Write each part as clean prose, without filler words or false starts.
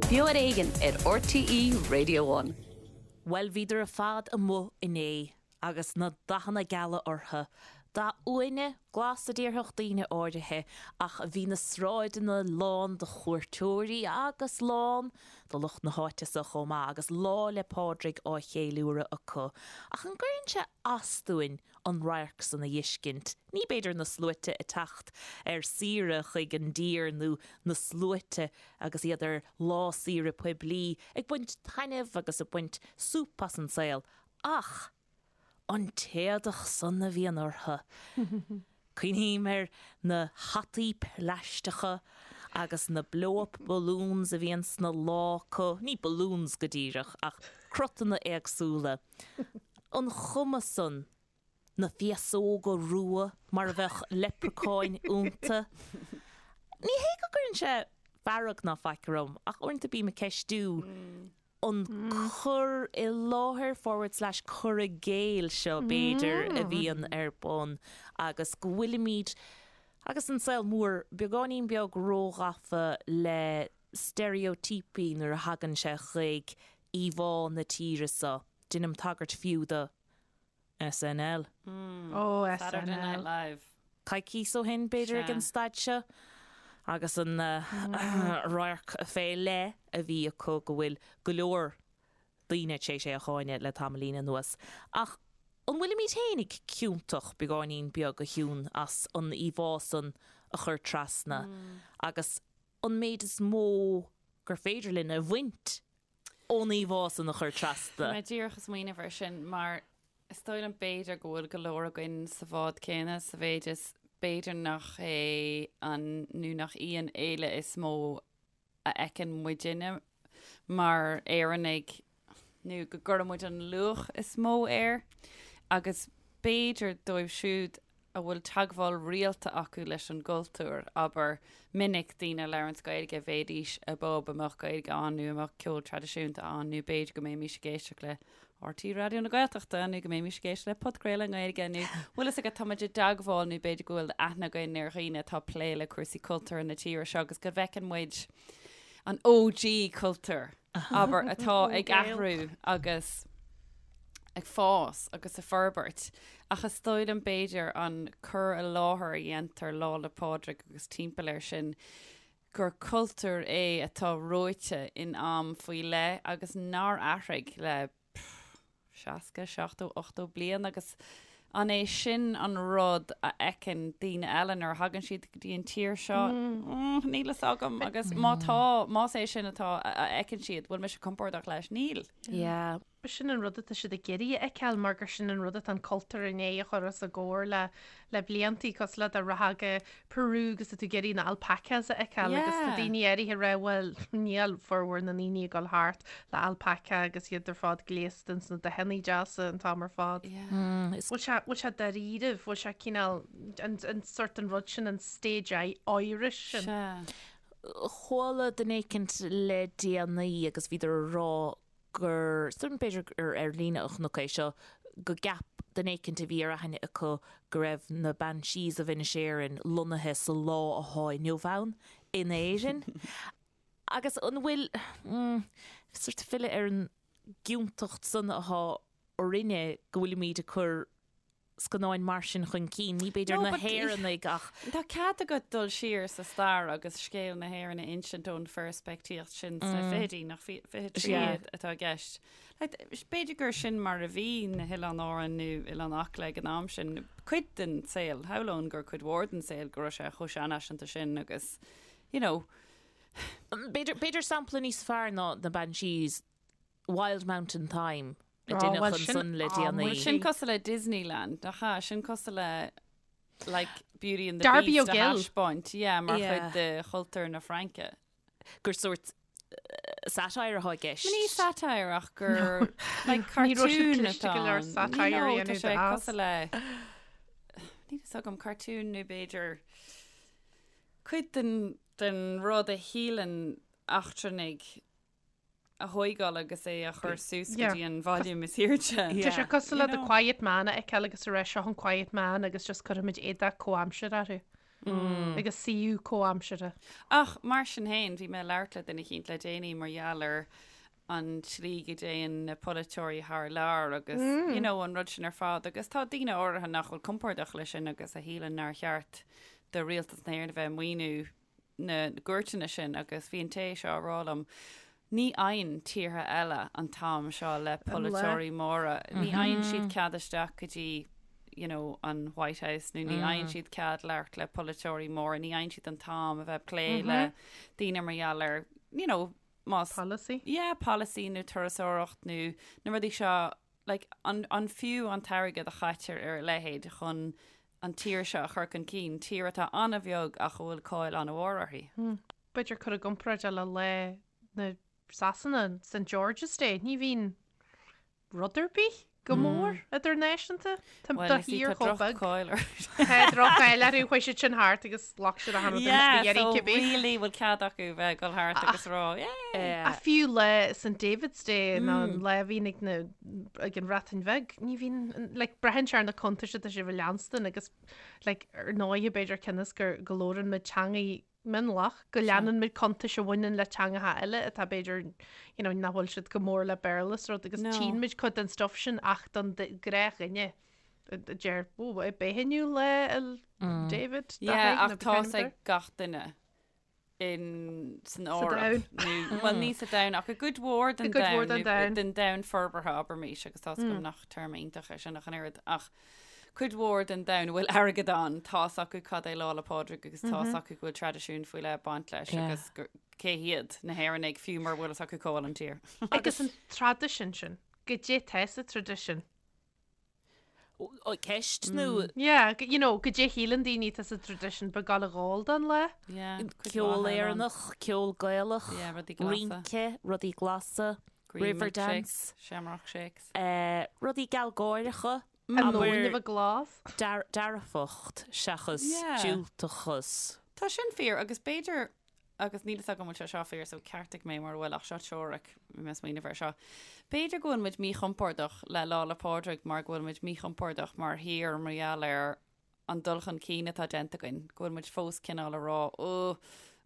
Beo ar Éigean ar RTÉ Radio One. Bhuel, bhíodar ar fad amuigh inné agus na dathanna geala orthu. Dath uaine, glas a déarfadh daoine áirithe, ach bhí na sráideanna lán de chuairteoirí agus lán de lucht na háite so chomh maith agus Lá 'le Pádraig á cheiliúradh acu. Ach an gcuireann sé as dúinn an radharc san a fheiscint? Ní b'fhéidir na sluaite ag teacht ar saoire chuig an dtír nó na sluaite agus iad ar lá saoire poiblí ag baint taitneamh agus ag baint súp as an saol ach an t-éadach san a bhíonn orthu! Cuimhním ar na hataí plaisteacha agus na blow-up balloons a bhíonn sna lámha acu, ní balloons go díreach ach cruthanna éagsúla. An chuma san, na féasóga rua mar a bheadh leipreacáin iontu. Ní hé go gcuireann sé fearg ná faic orm ach uaireanta bím ag ceistiú an cur i láthair forward slash cur i gcéill seo b'fhéidir a bhíonn ar bun agus go bhfuilimid, agus an saol mór, beagáinín beag róghafa le steiréitíopaí nuair a thagann sé chuig íomhá na tíre seo. Deinim tagairt fiú do SNL. Ó, Saturday Night SNL. Live. Coicíos ó shin, b'fhéidir, ag Sea. an staid seo, agus an radharc fé leith a bhí acu go bhfuil go leor daoine tar éis é a cháineadh le tamaillín anuas. Ach an bhfuilimid fhéinig ciontach beagáinín beag, a Shiún, as an íomhá san a chur trasna agus an méid is mó gur féidir linn a bhaint ón íomhá san a chur trasna. Bhí mé díreach ag smaoineamh air sin mar is dóigh liom b'fhéidir go bhfuil go leor againn sa bhád céanna sa mhéid is b'fhéidir nach é an nó nach í an fhéile is mó a fheiceann muidinne mar Éireannaigh nó go gcuireann muid an luach is mó air agus b'fhéidir dóibh siúd a bhfuil teagmháil rialta acu leis an gcultúr, abair, minic daoine a labhranns Gaeilge, bhéidís i bpub a mbeadh Gaeilge ann nó a mbeadh ceol traidisiúnta ann nó b'fhéidir go mbeimis ag éisteacht le RTÉ Raidió na Gaeltachta nó go mbeimis ag éisteacht le podchraoladh i nGaeilge nó bhfuil fhios agat tá muid i dteagmháil nó b'fhéidir go bhfuil aithne againn ar dhaoine atá ag plé le cúrsaí cultúrtha na tíre seo agus go bhfeiceann muid an OG cultúr. abair, atá ag athrú agus ag fás agus ag forbairt. Ach is dóigh liom b'fhéidir an cur i láthair a dhéantar Lá 'le Pádraig agus timpeall air sin, gur cultúr é atá reoite in am faoi leith agus nár athraigh le 60, 70, 80 bliain agus an é sin an rud a fheiceann daoine eile nuair a thagann siad go dtí an tír seo? Níl fhios agam agus má tá, más é sin atá a fheiceann siad, bhfuil mise compordach leis? Níl. Yeah. Sin an rud atá siad ag iarraidh a fheiceáil mar gur sin an rud atá an cultúr i ndiaidh a chur os a gcomhair le le bliantaí cosúil le dá rachfá go Peru agus tá tú ag iarraidh na alpacas a fheiceáil agus tá Yeah. daoine áirithe ag rá bhuel níl formhór na ndaoine ag dul thart le alpaca agus iad ar fad gléasta ins na dathanna deasa an t-am ar fad. Yeah. Is Bhfuil sé bhfuil sé dáiríribh, bhfuil sé cineál an an sort an rud sin an stage Irish sin. Sea. Chuala duine éicint le déanaí agus bhíodar a rá gur, is dóigh liom b'fhéidir gur ar líne a chonac é seo, go gceap duine éicint a bhí ar aithne acu go raibh na Banshees of Inisherin lonnaithe sa lá athá inniu ann in Éirinn. Agus an bhfuil, sort filleadh ar an gciontacht san athá orainne go bhfuilimid ag cur scannáin mar sin chun cinn, ní b'fhéidir No, na but hÉireannaigh ach. Tá cead agat dul siar sa stair agus scéal na hÉireann a insint ón pheirspictíocht sin sna fichidí, nach fichidí Yeah. atá i gceist. Like, b'fhéidir gur sin mar a bhí na hOileáin Árann nó Oileán Acla ag an am sin, cuid den saol, shamhlóinn gur cuid mhór den saol go raibh sé chomh seanfhaiseanta sin agus, you know, B'fhéidir, b'fhéidir sampla níos fearr ná na Banshees, Wild Mountain Thyme a Oh, deineadh well, sin ansan le déanaí. Bhuel, sin cosúil le Disneyland, nach ea? Sin cosúil le like Beauty and the Darby Beast a O'Gill. thaispeáint, yeah, mar Yeah. chuid de chultúr na Fraince. Gur sórt satire atá i gceist. Ní satire ach gur like Ní raibh siad cartoon cliste atá go leor ann. satire No, a tá dhéanamh sé de as. cosúil le níl fhios agam cartoon nó b'fhéidir cuid den den rud a shíleann eachtrannaigh a thóigeáil agus é a chur suas go Yeah. dtí an volume is airde. Tá sé cosúil le You The know. Quiet Man a fheiceáil agus a rá seo an Quiet Man agus just cuirfimid éadach comhaimseartha orthu. Agus suíomh comhaimseartha. Ach mar sin féin, bhí mé ag labhairt le duine eicínt le déanaí mar gheall ar an tslí go dtéann na polaiteoirí thar lear agus you know an rud sin ar fad agus tá daoine áirithe nach bhfuil compordach leis sin agus a shíleann nár cheart do rialtas na hÉireann a bheith ag maoiniú na gcuairteanna sin agus bhí an té seo ag rá liom ní fhaigheann tíortha eile an t-am seo le polaiteoirí móra, ní fhaigheann siad cead isteach go dtí you know, an White House nó ní fhaigheann siad cead labhairt le polaiteoirí móra, ní fhaigheann siad an t-am a bheith ag plé le daoine mar gheall ar you know, más Policy. yeah, policy nó turasóireacht nó na rudaí seo like, an, an fiú an t-airgead a chaitear ar a leithéid chun an tír seo a chur chun cinn, tír atá an-bheag ach a bhfuil cáil an-mhór uirthi. B'fhéidir cur i gcomparáid le lá na Sasana, St George's Day, ní bhíonn rud ar bith go mór idirnáisiúnta. Tá Bhuel, do you see, thír tá chomh beag. droch-cháil orthu. Tá droch-cháil orthu, chuaigh siad sin thart agus ghlac siad achan rud Yeah, a iarraidh so cibé. really bhfuil cead acu bheith ag dul thart agus rá, yeah. Ach fiú lá St David's Day nó an lá a bhíonn ag na ag an Bhreatain Bheag, ní bhíonn, like, braitheann sé ar na cuntais atá sibh a leanstan agus, like, ar ndóighe b'fhéidir cionn is gur go labhrann muid teangaí mionlach, go leanann muid cuntais a bhaineann le teangacha eile atá b'fhéidir, you know, nach bhfuil siad go mór le Béarla is rud agus No. tchíonn muid cuid den stuff sin ach don ghnáthdhuine a deir, ó, b'é inniu lá 'le David, dá Yeah, héigin, ach nó tá b'fhéidir. ag gach duine in san Sa Eoraip domhan. nó bhuel ní sa domhan ach i gcuid mhór den I gcuid mhór domhan den nó domhan. den domhan forbartha abraimis agus tá's agam nach téarma iontach é sin ach an oiread ach cuid mhór den domhan a bhfuil airgead ann tá's acu cad é Lá 'le Pádraig agus tá's acu go bhfuil traidisiún faoi leith ag baint leis Yeah. agus gur- cé hiad na hÉireannaigh fiú mura bhfuil fhios acu cá bhfuil an tír. Agus an traidisiún sin, goidé tá sa traidisiún. Ó, ceist nó Yeah, go- you know, goidé shíleann daoine tá sa traidisiún ba gal a dhul don lá. Yeah, cuid ceol mhaith ann. Éireannach, ceol Gaelach, Yeah, rudaí glasa. rince, rudaí glasa, Green river milkshakes, dance, Shamrock shakes. eh, rudaí gealgháireacha, An abair nóin a bheith glas. dear- dearfacht seachas Yeah. diúltachas. Tá sin fíor agus b'fhéidir agus níl fhios agam an bhfuil sé seo fíor so ceartaigh mé mura bhfuil ach seo teoiric bhí mé ag smaoineamh air seo. B'fhéidir go bhfuil muid míchompordach le Lá 'le Pádraig mar go bhfuil muid míchompordach mar thír mar gheall ar an dul chun cinn atá déanta againn, go bhfuil muid fós cineál ag rá ó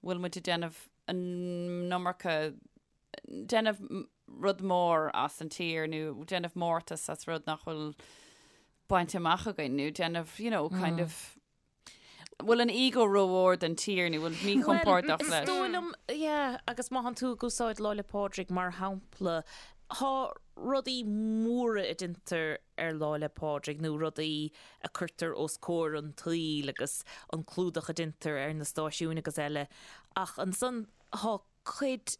bhfuil muid ag déanamh an iomarca déanamh rud mór as an tír nó déanamh mórtas as rud nach bhfuil bainte amach againn nó déanamh you know kind of bhfuil an ego rómhór don tír nó bhfuil míchompordach Is leis. dóigh liom, yeah, agus má thánn tú ag úsáid Lá 'le Pádraig mar shampla, thá rudaí móra a deintear ar Lá 'le Pádraig nó rudaí a cuirtear os comhair an tsaoil agus an clúdach a deintear ar na stáisiúin agus eile ach ansan thá cuid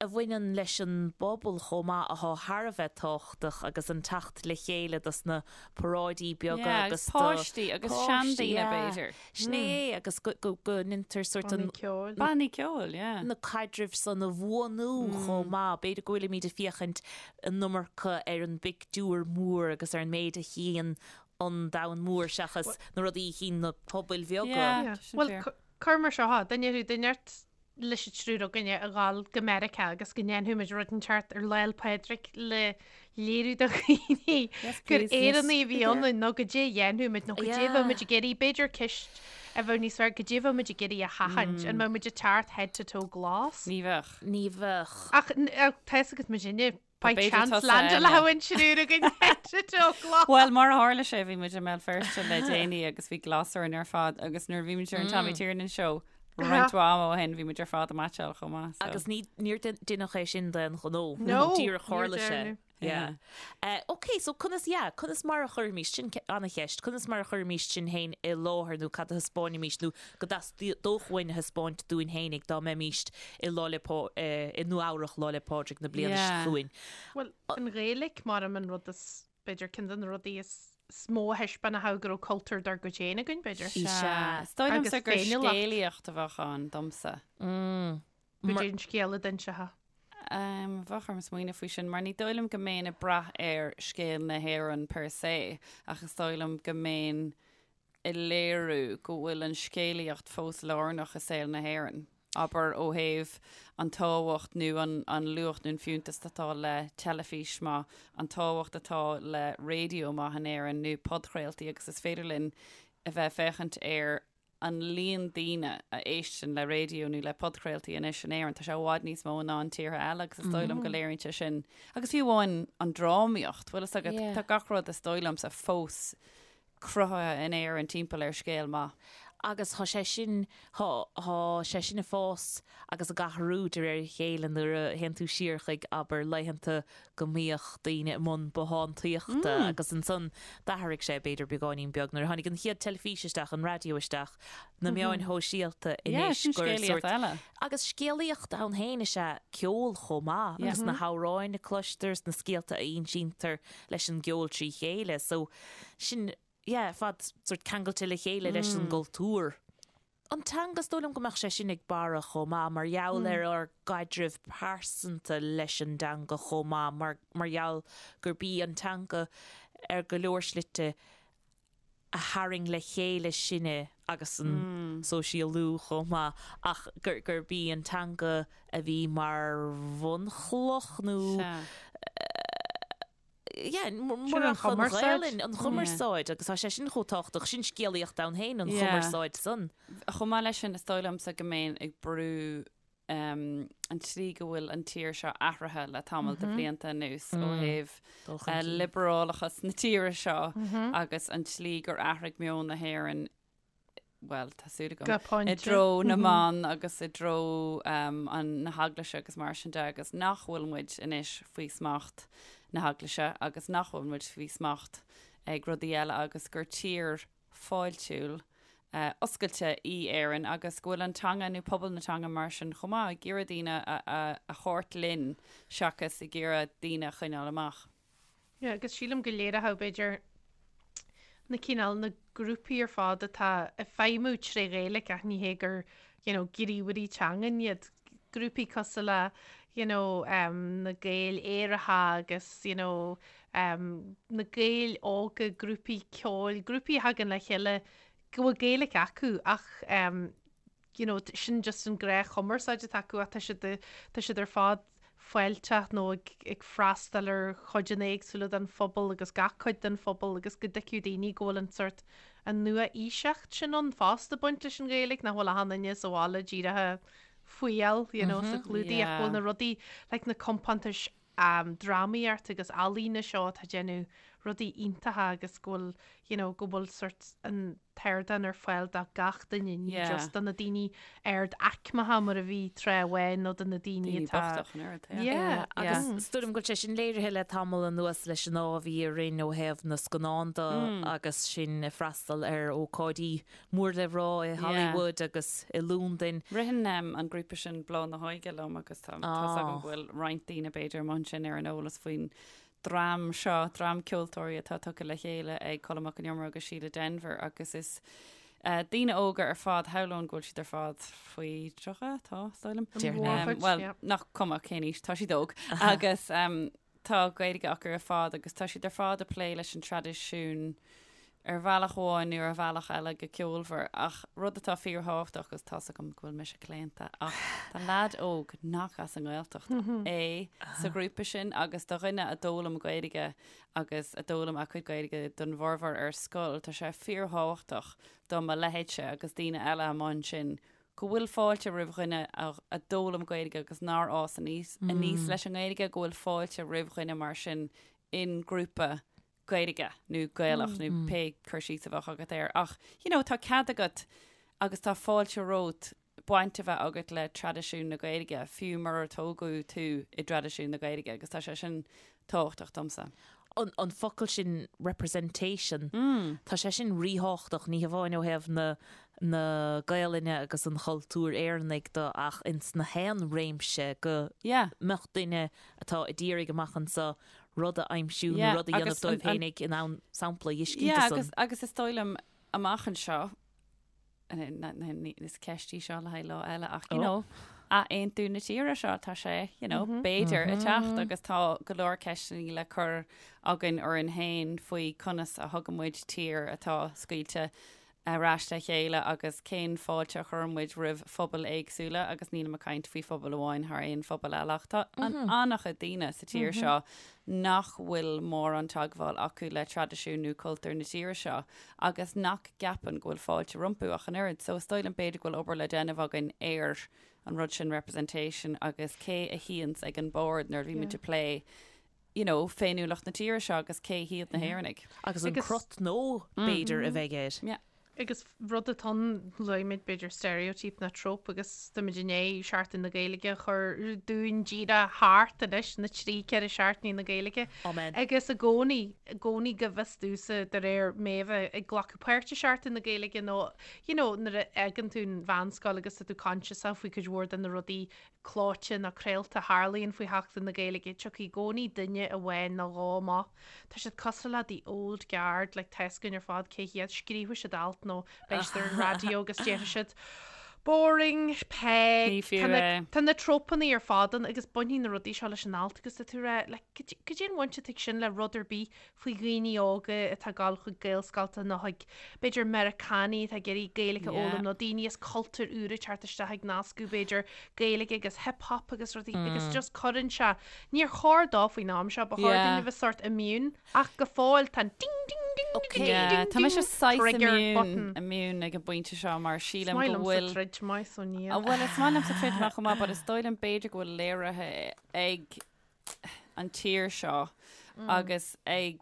a bhaineann leis an bpobal chomh maith athá thar a bheith tábhachtach agus an teacht le chéile dos na paráidí beaga Yeah, agus agus do páistí agus páistí, seandaoine yeah. b'fhéidir. Sin é agus go go go ndeintear sort an Bannaí ceoil. Bannaí ceoil, yeah. na caidrimh san a bhuanú chomh maith. B'fhéidir go bhfuilimid ag féachaint an iomarca ar an bpictiúr mór agus ar an méid a chíonn an domhan mór seachas na rudaí a chíonn na pobail bheaga. Yeah. Yeah. Tá sin Bhuel, fíor. cu- cuir mar seo, duine thú, duine ort leis an triúr againne a dhul go Meiriceá agus go ndéanfaidh muid rud inteacht ar Lá 'le Pádraig le léiriú do dhaoine gur Éireannaigh a bhí ionainn nó goidé a dhéanfaidh muid nó goidé a bheadh muid ag iarraidh, b'fhéidir ceist a bheadh níos fearr, goidé a bheadh muid ag iarraidh a sheachaint, an mbeadh muid ag teacht head to toe glas? Ní bheadh. Ní bheadh. Ach tá fhios agat muidinne By B'fhéidir chance tusa landáil eile. an triúr againn head to toe glas. Bhuel, mar a tharla sé, bhí muid i mBéal Feirste le déanaí agus bhí glas orainn ar fad agus nuair a bhí muid ar an Tommy Tiernan Show roinnt mhaith ama ó shin, bhí muid ar fad ag meaitseáil chomh maith. So. Agus ní, níor deineadh é sin d'aon ghnó. No, Díreach níor tharla sé. deineadh. Yeah. Uh, ok, so conas, yeah, conas mar a chuirfimís, sin an-cheist, conas mar a chuirfimís sinn féin i láthair nó cad a thaispeáinfimís nó go dteastódh uainn a thaispeáint dúinn fhéinig dá mbeimís i Lá 'le Pá, i Nua Eabhrach Lá 'le Pádraig na bliana seo Yeah. chugainn. Bhuel, an Ghaeilge mar an rud is, b'fhéidir, ceann de na rudaí is mó a thaispeánfadh go raibh cultúr dár gcuid féin againn, b'fhéidir. Sea. Is dóigh Agus liomsa gur féiniúlacht. scéalaíocht a bheadh ann domsa. Mm. Goidé an scéal a d'inseofá. Bheadh orm smaoineamh faoi sin, mar ní dóigh liom go mbeinn ag brath ar scéal na hÉireann per se, ach is dóigh liom go mbeinn ag léiriú go bhfuil an scéalaíocht fós lárnach i saol na hÉireann, abair ó thaobh an tábhacht nó an an luach nó an fiúntas atá le teilifís maith, an tábhacht atá le raidió maith in Éirinn nó podchraoltaí agus is féidir linn a bheith ag féachaint ar. an líon daoine a éisteann le raidió nó le podchraoltaí anois in Éirinn, tá sé i bhfad níos mó ná an tíortha eile agus is dóigh liom go léiríonn sé sin. Agus fiú amháin an drámaíocht, bhfuil fhios agat, tá gach rud is dóigh liomsa fós cruthaithe in Éirinn timpeall ar scéal maith. Agus tá sé sin, tá, tá sé sin ag fás agus ag athrú de réir a chéile nuair a théann tú siar chuig, abair, laethanta go mbíodh daoine i mbun bothántaíochta agus ansan d'athraigh sé b'fhéidir beagáinín beag nuair a tháinig an chéad teilifís isteach, an raidió isteach, na meáin shóisialta anois gur scéalaíocht eile. Agus scéalaíocht ann féin is ea ceol chomh maith agus na hamhráin a cloistear is na scéalta a insíntear leis an gceol trí chéile. So sin, yeah, ar fad sort ceangailte le chéile leis an gcultúr. An teanga, is dóigh liom go mbeadh sé sin ag borradh chomh maith mar gheall ar ár gcaidreamh pearsanta leis an dteanga chomh maith mar mar gheall gurb í an teanga ar go leor slite a tharraing le chéile sinne agus an sóisialú chomh maith ach gur gurb í an teanga a bhí mar bhunchloch nó yeah, murach an Ghaelainn, an chumarsáid, agus tá sé sin chomh tábhachtach, sin scéalaíocht ann féin, an chumarsáid san. Chomh maith leis sin, is dóigh liomsa go mbeinn ag brú an tslí go bhfuil an tír seo athraithe le tamall de bhlianta anuas ó thaobh liobrálachas na tíre seo agus an tslí gur athraigh meon na hÉireann bhuel, tá súil agam, i dtreo na mban agus i dtreo an na heaglaise agus mar sin de agus nach bhfuil muid anois faoi smacht na heaglaise agus nach bhfuil muid faoi smacht ag rudaí eile agus gur tír fáiltiúil oscailte í Éirinn agus go bhfuil an teanga nó pobal na teanga mar sin chomh maith ag iarraidh daoine a thabhairt linn seachas ag iarraidh daoine a choinneáil amach. Yeah, agus sílim go léireodh b'fhéidir na cineál na grúpaí ar fad atá ag feidhmiú tré Ghaeilge ach ní hé gur you know, gníomhairí teangan iad. Grúpaí cosúil le you know, um, na Gaeil Aeracha agus you know, um, na Gaeil óga, grúpaí ceoil, grúpaí a thagann le chéile go bhfuil Gaeilge acu ach um, you know, sin just an gnáthchumarsáid atá acu ach tá siad, tá siad ar fad fáilteach nó ag, ag freastal ar chuideanna éagsúla den phobal agus gach cuid den phobal agus go dtuigfeadh daoine go bhfuil an sort an nua-aoiseacht sin ann fosta ag baint leis an Ghaeilge, nach bhfuil achan duine sa bhaile díreach ag fuíoll, you know, sa chlúdaigh ach go bhfuil na rudaí like na compántais um, drámaíocht agus ealaíne seo atá ag déanamh rudaí iontacha agus go bhfuil, you know, go bhfuil sort an t-ardán ar fáil do gach duine, ní Yeah. just do na daoine ard-aicmeacha mar a bhí tráth amháin nó do na daoine Daoine atá bochta an oiread, yeah. Yeah. Agus is dóigh liom go bhfuil sé sin léirithe le tamall anuas leis an ádh a bhí orainn ó thaobh na scannán de agus sinn ag freastal ar ócáidí mór le rá i Hollywood agus i Londain. Ritheann an grúpa sin Bláth na hÓige liom agus tá tá's agam go bhfuil roinnt daoine b'fhéidir amuigh ansin ar an eolas faoin dream seo, dream ceoltóirí atá tugtha le chéile ag Colm Mac Con Iomaire agus Síle Denvir agus is daoine óga ar fad, shamhlóinn go bhfuil siad ar fad faoi 30, tá, is dóigh liom. Déarfainn. Bhuel, nach cuma cén aois, tá siad óg agus Tá Gaeilge acu ar fad agus tá siad ar fad ag plé leis an traidisiún ar bhealach amháin nó ar bhealach eile go ceolmhar. Ach rud atá fíorthábhachtach, agus tá's agam go bhfuil mise claonta, ach tá leaid óg nach as an nGaeltacht é sa ghrúpa sin agus do dhuine a d'fhoghlaim Gaeilge agus a d'fhoghlaim a cuid Gaeilge don bhformhór ar scoil, tá sé fíorthábhachtach do mo leithéidse agus daoine eile amuigh ansin go bhfuil fáilte roimh dhuine a d'fhoghlaim Gaeilge agus nár fhás aníos aníos leis an nGaeilge, go bhfuil fáilte roimh dhuine mar sin in grúpa Gaeilge nó Gaelach nó pé cur síos a bheadh agat air. Ach, you know, tá cead agat agus tá fáilte romhat baint a bheith agat le traidisiún na Gaeilge, fiú murar tógadh tú i dtraidisiún na Gaeilge agus tá sé sin tábhachtach domsa. An focal sin representation, tá sé sin ríthábhachtach, ní hamháin ó thaobh na na Gaelainne agus an chultúir Éireannaigh de ach ins na haon réimse go mbeadh duine atá ag iarraidh amach anseo rud a aimsiú nó rud a dhéanamh dóibh féinig in ann sampla a fheiscint Yeah, de san. agus, agus is dóigh liom amach anseo, Is ceist í seo le haghaidh lá eile ach you know, athaontú na tíre seo tá sé you know, b'fhéidir ag teacht agus tá go leor ceisteanna le cur againn orainn féin faoi conas a thugann muid tír atá scaoilte. ar ais le chéile agus cén fáilte a chuireann muid roimh phobail éagsúla agus nílim ag caint faoi phobal amháin thar aon phobal eile ach tá an-chuid daoine sa tír seo nach bhfuil mórán teagmháil acu le traidisiún nó cultúr na tíre seo agus nach gceapann go bhfuil fáilte rompu ach an oiread. So is dóigh liom b'fhéidir go bhfuil obair le déanamh againn ar an rud sin representation agus cé a shuíonns ag an bord nuair a bhímid ag plé you know, féiniúlacht na tíre seo agus cé hiad na hÉireannaigh. Agus an crot nó, b'fhéidir, a bheidh air. Yeah. Agus rud atá ann, luaigh muid b'fhéidir stereotype nó trope agus táimid i ndiaidh Seachtain na Gaeilge a chur dúinn díreach thart anois, na trí, ceithre seachtainí na Gaeilge. Amen. Agus i gcónaí, i gcónaí go bhfios domhsa de réir mé a bheith ag glacadh páirt i Seachtain na Gaeilge nó, you know, nuair a fhágann tú an mheánscoil agus tá tú conscious faoi cuid mhór de na rudaí clóite nó craolta a tharlaíonn faoi Sheachtain na Gaeilge, tiocfaidh i gcónaí duine amháin nó dhó amach. Tá siad cosúil le the old guard, like tá a fhios againn ar fad cé hiad, scríobfaidh siad alt nó beidh siad ar an raidió agus déarfaidh siad boring, peg, Ní fiú tá na, é. tá na tropanna ar fad ann agus bainfidh na rudaí seo leis an alt agus tá tú ag rá, like, cad cad é an bhaint atá ag sin le rud ar bith faoi dhaoine óga atá ag dul chuig Gaelscolta nó chuig, b'fhéidir, Meiriceánaigh atá ag iarraidh Gaeilge a fhoghlaim nó daoine as cultúir úra ag teacht isteach ag nascadh, b'fhéidir, Gaeilge agus hip hop agus rudaí agus just cuireann sé, níor chóir dó faoin am seo, ba chóir dúinn a bheith sort immune ach go fóill tá an ding ding ding ding ding ding Tá mise saghas trigger immune, button. immune ag an bpointe seo mar Is sílim maith go liomsa bhfuil troid maith so níl. Bhuel, is maith liomsa troid maith chomh maith, but is dóigh liom b'fhéidir go bhfuil léirithe ag an tír seo agus ag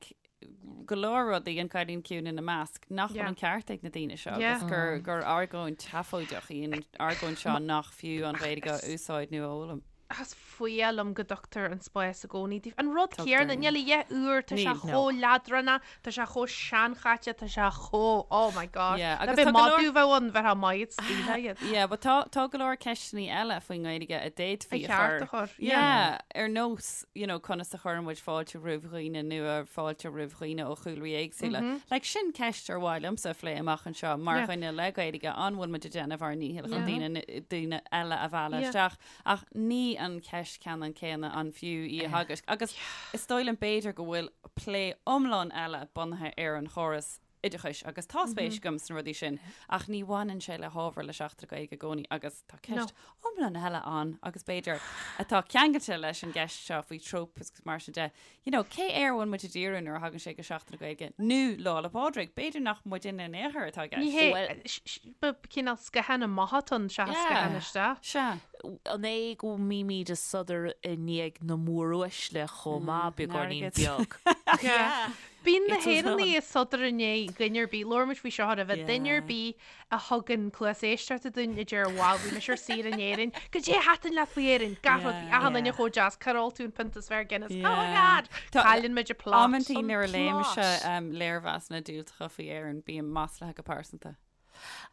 go leor rudaí, an Cailín Ciúin ina measc, nach bhfuil an ceart ag na daoine seo agus gur gur argóint sheafóideach í an argóint seo nach fiú an Ghaeilge a úsáid nó a fhoghlaim. Is fuath liom go dtugtar an spás i gcónaí daofa. An rud Tugtar. céanna, níl a dhath úr, tá sé Níl. chomh leadránach, tá sé chomh seanchaite, tá sé chomh, oh my gosh. Yeah, Ná agus beidh tá go leor- madadh bheith ann, bheifeá maith ag scaoileadh iad. Yeah, but tá, tá go leor ceisteanna eile faoin nGaeilge a d'fhéadfaí A a cheart chur. a chur, Yeah, ar nós, you know, conas a chuireann muid fáilte roimh dhaoine nua, fáilte roimh dhaoine ó chúlraí éagsúla. Like, sin ceist ar mhaith liomsa a phlé amach anseo mar Yeah. dhuine le Gaeilge, an bhfuil muid ag déanamh ár ndícheall chun Yeah. daoine, daoine eile a mhealladh Yeah. isteach? Ach ní an cheist ceannann céanna an fiú í a theagasc. Agus is dóigh liom b'fhéidir go bhfuil plé iomlán eile bunaithe ar an chóras oideachais agus tá spéis agam sna rudaí sin ach ní bhaineann sé le hábhar le Seachtain na Gaeilge i gcónaí agus tá ceist iomlán eile ann agus b'fhéidir atá ceangailte leis an gceist seo faoi tropes agus mar sin de. You know, cé air a bhfuil muid ag díriú nuair a thagann sé go Seachtain na Gaeilge nó Lá 'le Pádraig? B'fhéidir nach muidinne in aon chor atá i Ní gceist. hé, Bhuel- sh- sh- ba cineál scathán amach atá ann seachas Yeah. scathán isteach. Sea. An é go mbímid ag sodar i ndiaidh na móruaisle chomh maith, beagáinín airgead. beag? Yeah. Bíonn na It's as well. hÉireannaigh ag sodar i ndiaidh dhuine ar bith, labhair muid faoi seo roimhe, duine ar Yeah. bith a thugann cluas éisteachta dúinn a deir wow bhí mise ar saoire in Éirinn, goidé a thaitin leat faoi Éirinn, gach rud, bhí achan duine chomh deas, cár ól tú an pionta is fearr Guinness, oh my god, cailleann muid an plot. Amantaí nuair a léimse plot. léirmheasanna diúltacha faoi Éirinn, bím maslaithe go pearsanta.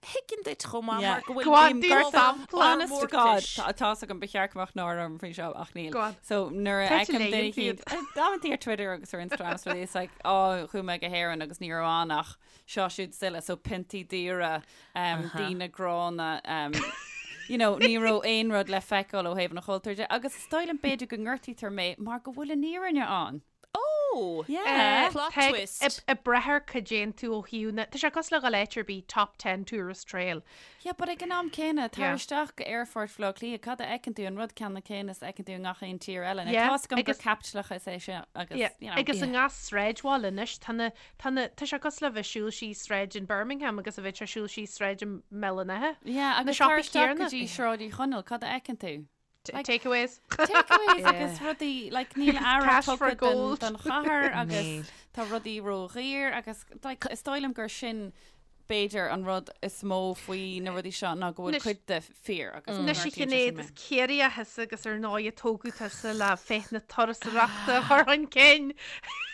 Thuigfinn duit chomh maith Yeah. mar go bhfuil Go on, bím do gortaithe sampla. Honest to God, mórtais. tá tá's agam ba cheart go mbeadh náire orm faoi seo ach níl. Go on. So nuair a Tá tú fheicim duine léann eicínt, amantaí ar Twitter agus ar Instagram is rudaí, it's like, oh, chuaigh mé go hÉirinn agus ní raibh ann ach seo siúd is uile, so piontaí daora, daoine gránna, you know, ní raibh aon rud le feiceáil ó thaobh an chultúir de, agus is dóigh liom b'fhéidir go ngortaítear mé mar go bhfuil an fhírinne ann. Oh! Yeah. Plot Tá twist. Ag brath ar cad a dhéan tú ó thaobh na, tá sé cosúil le dhul áit ar bith, top 10 tourist trail. Yeah, but ag an am céanna, tar Yeah. isteach go aerfort Bhaile Átha Cliath, cad a fheiceann tú, an rud ceannann céanna is a fheiceann tú i ngach aon tír eile. Now, Yeah, tá's agam gur agus- caipitleachas é sin agus, Yeah, you know. Agus i ngach sráidbhaile anois, tá na, Tá na, tá sé cosúil le bheith ag siúl síos sráid in Birmingham agus a bheith ag siúl síos sráid i mBéal an Átha. Yeah, Na agus tar siopaí isteach go céanna. dtí Sráid Uí Chonaill, cad a fheiceann tú? Like- Takeaways. Takeaways agus rudaí, like, níl aire Cash for tugtha don, gold. don chathair agus Níl. tá rudaí ródhaor agus like, is dóigh liom gur sin b'fhéidir an rud is mó faoi na rudaí seo ná go bhfuil Anois- cuid de fíor agus go Anois a ngortaíonn sé sin Shinéad, mé. is Ciarraíoch thusa agus ar ndóigh a tógadh tusa le féith na turasóireachta a chur chun cinn.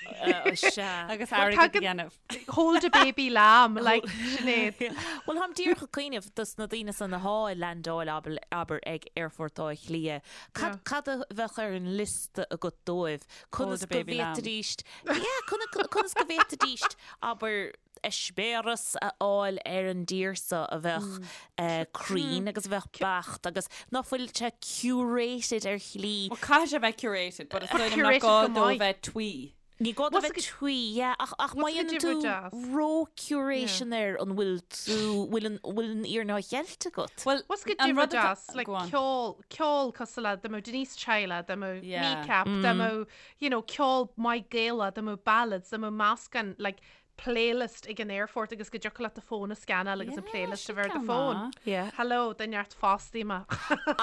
Sea. Agus Well, airgead a tagann- dhéanamh. Hold a baby lamb, like Sinéad. Bhuel, táim díreach ag cuimhneamh dos na daoine san athá ag landáil abair ag Aerfort Átha Cliath. Cad, cad a bheadh ar an liosta agat dóibh? Conas a go baby lamb. bhféadfaidís, yeah, conas conas go bhféadfaidís, abair, eispéireas a fháil ar an dtír seo a bheadh cruinn agus a bheadh beacht agus ná fuil sé curated ar shlí. Well, caithfidh sé bheith curated, but is dóigh liom nach Curated gá go dó maith. bheith twee. Ní gá do bheith twee, yeah, ach ach má dhéanann tú ró-curation air an bhfuil tú, bhfuil an, bhfuil an fhírinne á cheilt agat? Bhuel, What's go an rud difear atá, deas, like go on. ceol, ceol cosúil le dá mbeadh Denise Chaila, dá mbeadh Yeah. Kneecap, dá mbeadh, you know, ceol maith Gaelach, dá mbeadh ballads, dá mbeadh meascán, like, playlist ag an aerfort agus go dtiocfadh leat do fón a scanáil agus an Yeah, playlist a sin bheith ar do ceann fón. maith. Yeah. Hello, do neart fostaí mé.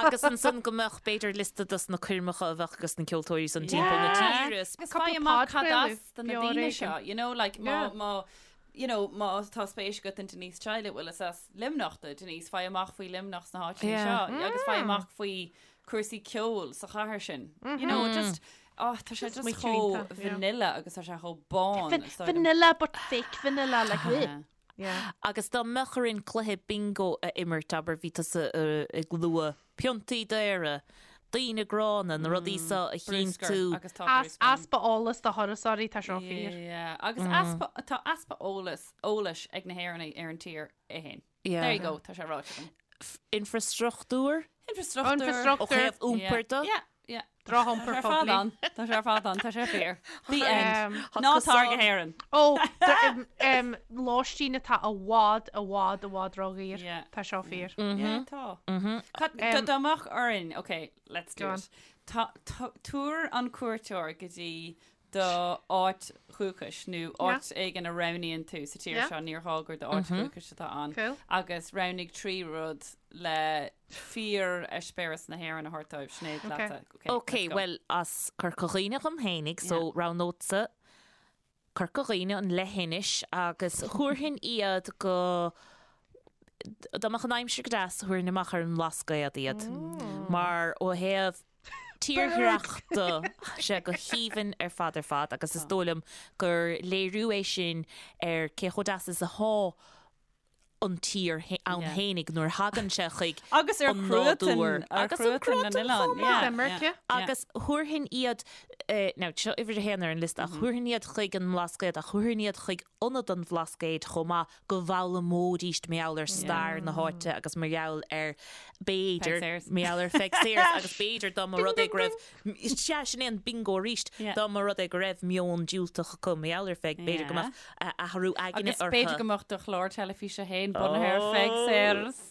Agus ansan go mbeadh b'fhéidir liosta dos na coirmeacha a bheadh ages na ceoltóirí san timpeall na Yeah. tíre. Agus Cúpla faigh amach cad podchraoladh, as do na beo daoine ar seo, éigean. you know, like má, Yeah. má, you know, má tá spéis agat in Denise Chaila, bhuel is as Luimneach do Denise, faigh amach faoi Luimneach sna háiteanna Yeah. seo agus faigh amach faoi cúrsaí ceoil sa chathair sin. You know, just, oh, tá sé just smaoitiú chomh iontach, yeah. vanilla agus tá sé chomh bán. Van- is dóigh liom. Vanilla but fake vanilla, like, ugh. Yeah. Yeah. Agus dá mbeadh orainn cluiche bingo a imirt, abair, bhí tusa ag lua piontaí daora, daoine gránna, na rudaí seo a Bruscar chinntiú. agus tá As, bruscar ann. easpa eolas do thurasóirí, tá seo fíor. Yeah, agus easpa, tá easpa eolas, eolais ag na hÉireannaigh ar an tír é féin. Yeah. There you go, tá sé ráite agam. Infrastruchtúr? Infrastruchtúr. Ó Infrastruchtúr. thaobh iompair de? Yeah, yeah. Drochiompar Tá sé ar fad poiblí. ann. Tá sé ar fad ann, tá sé fíor. The end. Um, Ná tar go hÉirinn. Ó, um, lóistín atá i bhfad, i bhfad, i bhfad ródhaor. Yeah. Tá seo fíor. Yeah, tá. Cad- dá dá mbeadh orainn, okay, let's do Go on. it. Tá, tá, tabhair an cuairteoir go dtí do áit dhúchais nó áit éigin a roghnaíonn tú sa tír seo, níor ghá gur d'áit dhúchais atá ann, agus roghnaigh 3 rud le fíor-eispéireas na hÉireann a thabhairt dóibh. Sinéad, leatsa. Ok, bhuel, as Corca Dhuibhne dhom fhéinig, so roghnódsa Corca Dhuibhne, an leithinis, agus thabharfainn iad go, dá mbeadh an aimsir go deas, thabharfainn amach ar an mBlascaod iad, mar ó thaobh tírdhreach de, tá sé go haoibhinn ar fad ar fad agus is dóigh liom gur léiriú é sin ar cé chomh deas is athá an tír ann fhéinig nuair a thagann sé chuig Agus ar an chruatan, nádúr ar agus an chruatan na cruatan n-oileán. chomh maith. Yeah, Imirce. yeah. Agus thabharfainn iad, now seo uimhir a haon ar an liosta, ach thabharfainn iad chuig an mBlascaod ach thabharfainn iad chuig Ionad an Bhlascaoid chomh maith go bhfoghlaimeoidíst mar gheall ar stair na háite agus mar gheall ar, b'fhéidir, mar gheall ar Pheig Sayers agus b'fhéidir dá mba rud é go raibh, sea, sin é an bingo arís, dá mba rud é go raibh meon diúltach acu mar gheall ar Pheig, b'fhéidir go mbeadh athrú aigne Agus orthu. b'fhéidir go mbeadh do chlár teilifíse féin bunaithe ar Pheig Sayers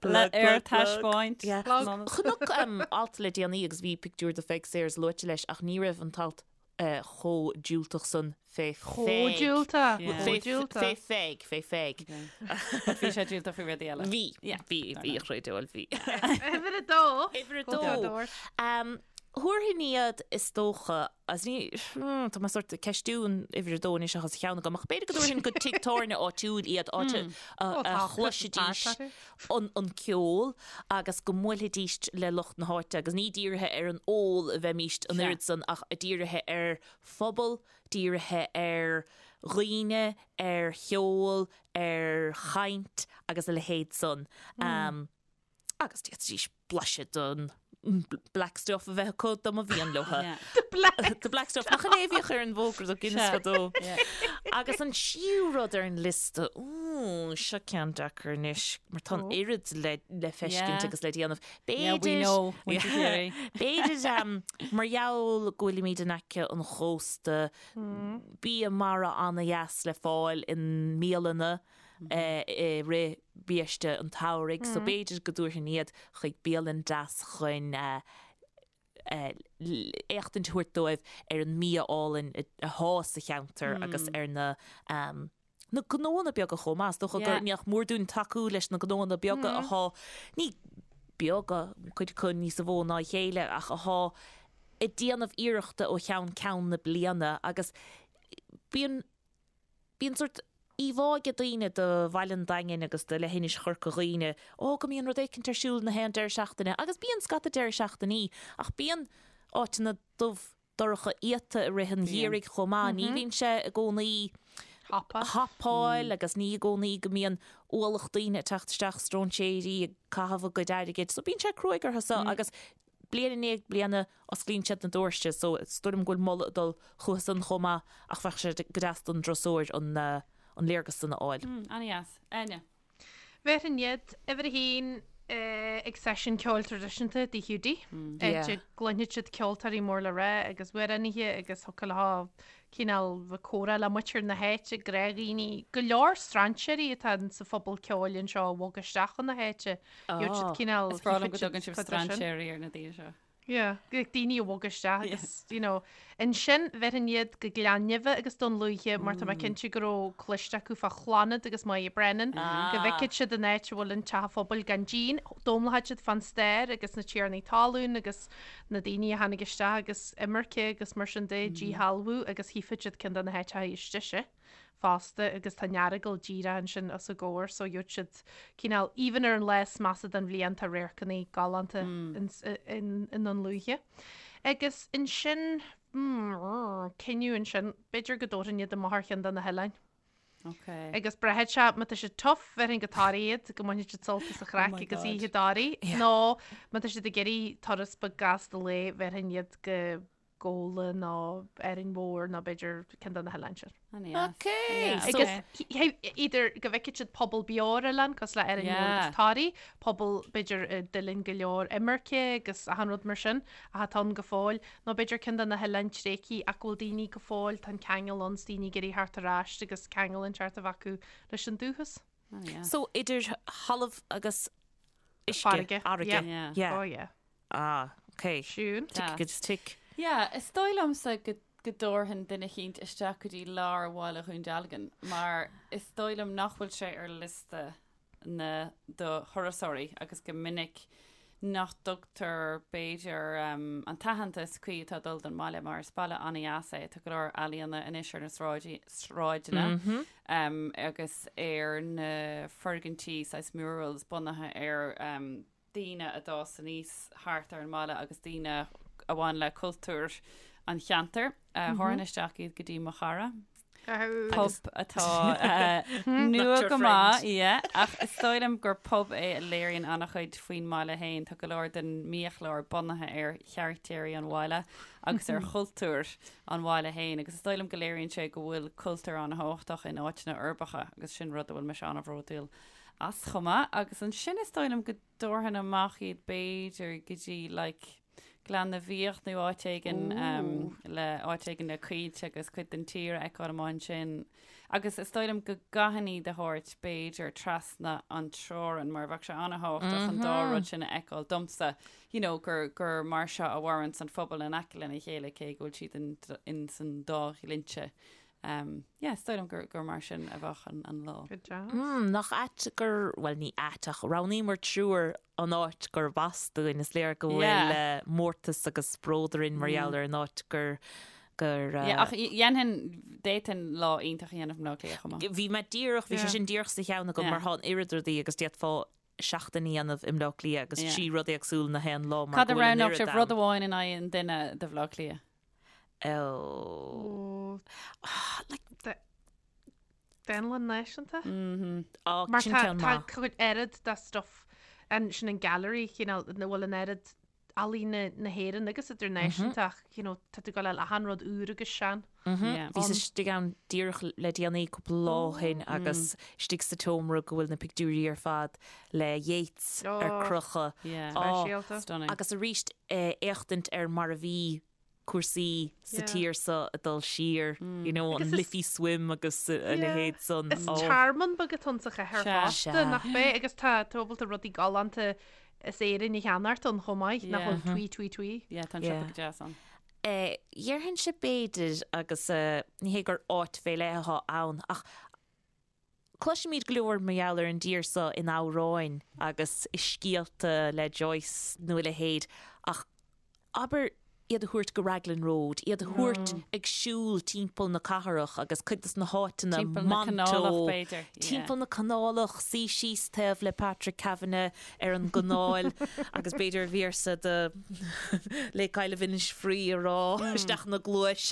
le ar taispeáint. Chonac alt le déanaí agus bhí pictiúr de Pheig Sayers luaite leis ach ní raibh an t-alt chomh diúltach san fé Chomh Pheig. diúltach. Yeah. Chomh diúltach. Fé Pheig, fé Pheig. But bhí sé diúltach faoi rudaí eile. Bhí, Yeah. bhí, bhí, a chreid, bhí. Uimhir a dó. Uimhir a Go dó. dóir. Um, Thabharfainn iad is dócha, as ní, hmm, tá mé sort ag ceistiú an uimhir a dó anois ach as a cheann agam, ach b'fhéidir go dtabharfainn go tigh tábhairne áitiúil iad, áit a, a, Ó, a tá chloisfidís Christmas party. an, an ceol agus go mbuailfidís le lucht na háite agus ní dírithe ar an ól a bheimíst an Sea. oiread san ach dírithe ar phobal, dírithe ar dhaoine, ar cheol, ar chaint agus a leithéid san. Um, agus d'fhéadfaidís blaiseadh den black stuff a bheith acu dá mba mhian leo. Yeah. The black. The black stuff. Nach in é a bhíodh ar an bhfógra do Guinness Sea. fadó. Yeah. Agus an tríú rud ar an liosta, úúú, seo ceann deacair anois, mar tá an Ó. oiread le, le feiscint Yeah. agus le déanamh. Yeah, we B'fhéidir, know, muintir Chiarraí. b'fhéidir um, mar gheall go bhfuilimid in aice an chósta, bia mara ana-dheas le fáil i mbialanna i rith biaiste an tsamhraidh, so b'fhéidir go dtabharfainn iad chuig bialann deas chun éachtaint a thabhairt dóibh ar an mbia álainn athá sa cheantar agus ar na na gnóanna beaga chomh maith. Is dócha gur nach mór dúinn tacú leis na gnóanna beaga athá, ní beaga, cuid acu níosa mhó ná a chéile, ach athá ag déanamh iarrachta ó cheann ceann na bliana agus bíonn Bíonn sórt íomhá ag daoine de Bhaile an Daingin agus de leithinis Chorca Dhuibhne, ó, go mbíonn rud éicint ar siúl na haon deireadh seachtaine, agus bíonn scata deireadh seachtainí, ach bíonn áiteanna dubh dorcha iata i rith an gheimhridh chomh maith, ní bhíonn sé i gcónaí hapáil agus ní i gcónaí go mbíonn ualach daoine ag teacht isteach, stróinséirí ag caitheamh a gcuid airgid, so bíonn sé cruaidh orthu so agus Bliain i ndiaidh bliana, osclaíonn siad na doirse so is dóigh liom go bhfuil moladh ag dul chucu san chomh maith ach bheadh sé go deas don dturasóir an an léargas san a fháil. Ana-dheas. Áine. Bhéarfainn iad, uimhir a haon. Ag seisiún ceoil traidisiúnta i dTigh Hiúdaí, áit a gcluinfidh siad ceoltóirí mór le rá agus amhránaithe agus thiocfadh leo cineál bheith comhrá le muintir na háite, gnáthdhaoine, go leor strainséirí atá sa phobal ceoil anseo a bhog isteach chun na háite. Gheobhaidh siad cineál Is breá liom go dtugann sibh strainséirí ar na daoine seo. Yeah, like daoine a bhog isteach agus, you know, ansin bhéarfainn iad go Gleann Nimhe agus Dún Lúiche mar tá mé cinnte go raibh cloiste acu fá Chlannad agus Máire Brennan, go bhfeicfidh siad an áit a bhfuil an teach an phobail gan díon, d'fhoghlaimeoidh siad fán stair agus na tiarnaí talún agus na daoine a tháinig isteach agus imirce agus mar sin de, díshealbhú agus chífidh siad ceann de na háiteacha istigh sin. fosta agus tá an Earagail díreach ansin os a gcomhair so gheobhaidh siad cineál even ar an lá is measa den bhliain tá radharcanna galánta i nDún Lúiche. Agus ansin cinneadh ansin b'fhéidir go dtabharfainn iad amach ar cheann de na hoileáin. Okay. Agus braithfidh sé má tá siad tough bhéarfainn go Toraigh iad go mbainfidh siad sult as an chraic oh agus oíche i dToraigh nó má tá siad ag iarraidh turas beag gasta lae bhéarfainn iad go Gabhla nó Árainn Mhór nó b'fhéidir ceann de na hoileáin sin. Ok. Agus either go bhfeicfidh siad pobal beo ar oileán cosúil le Árainn Mhór agus Toraigh, pobal b'fhéidir a d'fhulaing go leor imirce agus achan rud mar sin ach atá ann go fóill, nó b'fhéidir ceann de na hoileáin tréigthe ach go bhfuil daoine go fóill, tá an ceangal ann 's daoine ag iarraidh theacht ar ais agus ceangal inteacht a bheith acu leis an dúchas. So idir thalamh agus uisce, Farraige. Fharraige. Yeah. Oh yeah. Ah, ok. Siún. Tick agus tick. Yeah, is dóigh liomsa go go dtabharfainn duine eicínt isteach go dtí lár bhaile Dhún Dealgan mar is dóigh liom nach bhfuil sé ar liosta na do thurasóirí agus go minic nach dtugtar b'fhéidir an t-aitheantas cuí atá ag dul don mbaile mar is baile an-dheas é. Tá go leor ealaíona anois ar na sráidí, sráideanna agus ar na foirgintí saghas murals bunaithe ar daoine a d'fhás aníos thart ar an mbaile agus daoine a bhain le cultúr an cheantair. Thabharfainn isteach iad go dtí Mo Chara. Pub atá nua go maith, yeah, ach is dóigh liom gur pub é a léiríonn an-chuid faoin mbaile féin. Tá go leor den mbiachlár bunaithe ar charactéirí an bhaile agus ar chultúr an bhaile féin agus is dóigh liom go léiríonn sé go bhfuil cultúr an-thábhachtach in áiteanna uirbeacha agus sin rud a bhfuil mise an-bhródúil as chomh maith agus ansin is dóigh liom go dtabharfainn amach iad b'fhéidir go dtí like Gleann na bhFiach nó áit éigin um, le áit éigin le coillte agus cuid den tír a fheiceáil amach ansin. Agus is dóigh liom go gcaithfinn iad a thabhairt b'fhéidir trasna an teorainn mar bheadh sé an-thábhachtach an dá rud sin a fheiceáil domsa, you know, gur, gur mar seo a mhaireanns an phobal in aice lena chéile cé go bhfuil siad in, in san dá dhlínse. Um, yeah, is dóigh liom gur, gur mar sin a bheadh an, an lá. Good job. Mm, nach ait gur, bhuel ní ait ach roghnaíomar triúr an áit gurb as dúinn. Is léir go bhfuil Yeah. eh, mórtas agus bród orainn mar gheall ar an áit gur, gur, eh, Yeah, ach dhéanfainn, d'fhéadfainn lá iontach a dhéanamh i mBleá Cliath chomh maith. Bhí mé díreach, bhí sé Yeah. sin díreach sa cheann agam Yeah. mar tá an oiread rudaí agus d'fhéadfá seachtain a dhéanamh i mBleá Cliath agus Yeah. trí rud éagsúil na haon lá mar Cad a go bhfuil an roghnódh oiread sibh rud ann. amháin in aghaidh an duine do Bhleá Cliath? Oh. Like. Dánlann Náisiúnta? Mhm. Oh, Mar sin tá ceann tá maith. cuid oiread de stuff an sin an gallery cineál ina bhfuil an oiread ealaíne na hÉireann agus idirnáisiúnta ach you know tá tú ag gabháil a fháil achan rud úr agus sean. Yeah. Bhíos istigh ann díreach le déanaí cúpla lá ó shin agus istigh sa tseomra go bhfuil na pictiúirí ar fad le Yeats ar Oh. crochadh. Yeah. Oh, Speisialta. Stunning. Agus arís éachtaint ar mar a bhí cúrsaí sa Yeah. tír seo ag dul siar, you know, an Agus is- Liffey Swim agus a Yeah. leithéid san. Is Oh. tearmann beag atá ann sa chathair Sea. fosta, Sea. nach bea? Agus tá tú ábalta rudaí galánta as Éirinn a cheannacht ann chomh maith, nach Yeah. bhfuil tui tui tui. Yeah, tá an Yeah. siopa go deas ann. Eh, Dhéarfainnse b'fhéidir agus eh, ní hé gur áit fé leith atá ann ach Cloisimid go leor mar gheall ar an dtír seo in amhráin agus i scéalta le Joyce nó a leithéid ach abair iad a thabhairt go Raglan Road, iad a thabhairt ag siúl timpeall na cathrach agus cuid de na háiteanna, Timpeall na Monto, canálach b'fhéidir, yeah. timpeall na canálach, suí síos taobh le Patrick Kavanagh ar an gcanáil agus b'fhéidir véarsa de Lake Isle of Innisfree a rá isteach ina gcluais.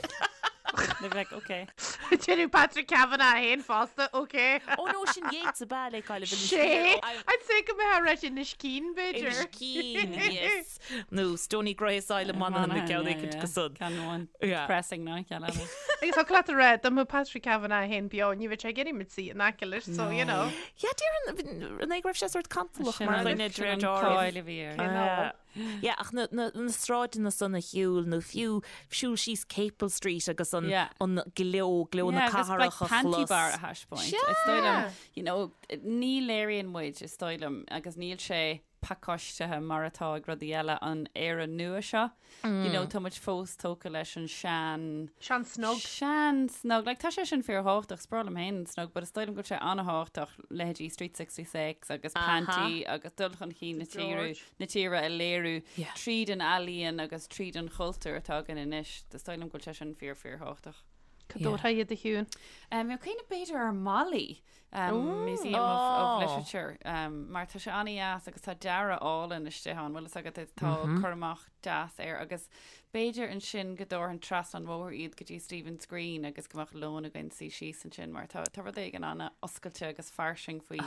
They'd be like, okay. Déanadh Patrick Kavanagh féin fosta, ok. Oh no, sin Yeats ab ea Lake Isle of Innis Sé, Free. I'd say go mbeadh rá Inis Caoin, b'fhéidir. Inis Caoin, yes. Nó Stoney Grace Isle of Manann, na ceann éicint go san. Ceann amháin Yeah. depressing ná ceann eile. Agus tá leat a rá dá mbeadh Patrick Kavanagh féin beo ní bheadh sé ag iarraidh muid suí in aice leis so you know. Yeah, déarfainn an é go raibh sé sórt cantalach Sin mar an dhuine de sin réir an dealraimh. cáil a bhí air. Yeah. Yeah, ach na, na, na sráideanna san a shiúl nó fiú siúl síos Capel Street agus an, Yeah. an gleo, gleo na Yeah, agus like cathrach a Panti chlos. Bar a thaispeáint. Is dóigh liom, you know, ní léiríonn muid, is dóigh liom, agus níl sé pacáistithe mar atá ag rudaí eile an Éire nua seo. You know, tá muid fós tógtha leis an sean... Sean snog. Sean snog. Like, tá sé sin fíorthábhachtach, is breá liom féin an snog, but is dóigh liom go bhfuil sé an-thábhachtach leithéidí Street 66 agus Panti agus dul chun cinn na tíre, na tíre a léiriú Yeah. tríd an ealaíon agus tríd an chultúr atá againn anois. Is dóigh liom go bhfuil sé sin fíor fíorthábhachtach. Cá dtabharfá iad a Shiún? Um, Bhí mé ag cuimhneamh b'fhéidir ar MoLI, um, Museum of, of Literature, um, mar tá sé an-deas agus tá dearadh álainn istigh ann, bhfuil fhios agat tá cur amach deas air agus b'fhéidir ansin go dtabharfainn trasna an bhóthair iad go dtí Stephen's Green agus go mbeadh lón againn suí síos ansin mar tá, tá rud éigin an-oscailte agus fairsing faoi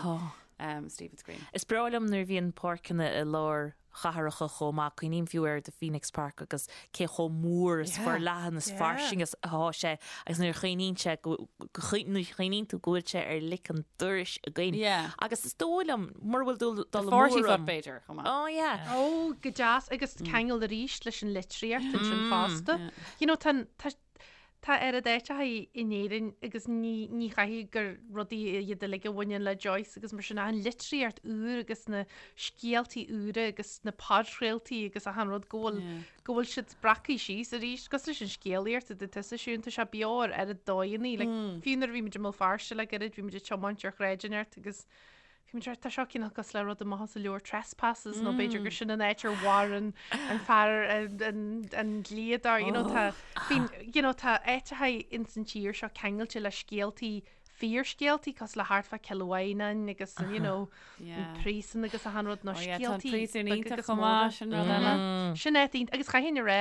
um, Stephen's Green. Is breá liom nuair a bhíonn páirceanna i lár chathracha chomh maith. Cuimhním fiú ar The Phoenix Park agus cé chomh mór is forleathan is fairsing is atá sé agus nuair a chuimhníonn sé go, nuair a chuimhníonn tú go bhfuil sé ar lic an dorais againn. Yeah. Agus is dóigh liom, mura bhfuil dul The dul amú 40 Foot orm. b'fhéidir chomh maith. Oh yeah. Ó, go deas agus ceangal arís leis an litríocht ansin fosta. You know, tá, tá, Tá oiread áiteacha in Éirinn agus ní ní chaithfidh gur rudaí iad uilig a bhaineann le Joyce agus mar sin ach an litríocht úr agus na scéaltaí úra agus na podchraoltaí agus achan rud go bhfuil go bhfuil siad breactha síos arís cosúil leis an scéalaíocht a dúirt tusa Siún tá sé beo ar oiread dóigheanna like fiú nuair a bhí muid i mBéal Feirste le gairid bhí muid ag tiomáint ar shráid inteacht agus Bhí muid tá seo cineál cosúil le rud amach as an leabhar Trespasses nó b'fhéidir gur sin an áit ar mharaigh an an fear an an an dlíodóir you know tá bíonn you know tá áiteacha ins an tír seo ceangailte le scéaltaí fíorscéaltaí cosúil le thart fá Cill Mhaighneáin agus an you know an príosún agus achan rud nó Oh yeah, tá an scéaltaí príosún beaga iontach agus chomh móra. maith, sin rud eile. Sin áit iontach agus chaithfinn a rá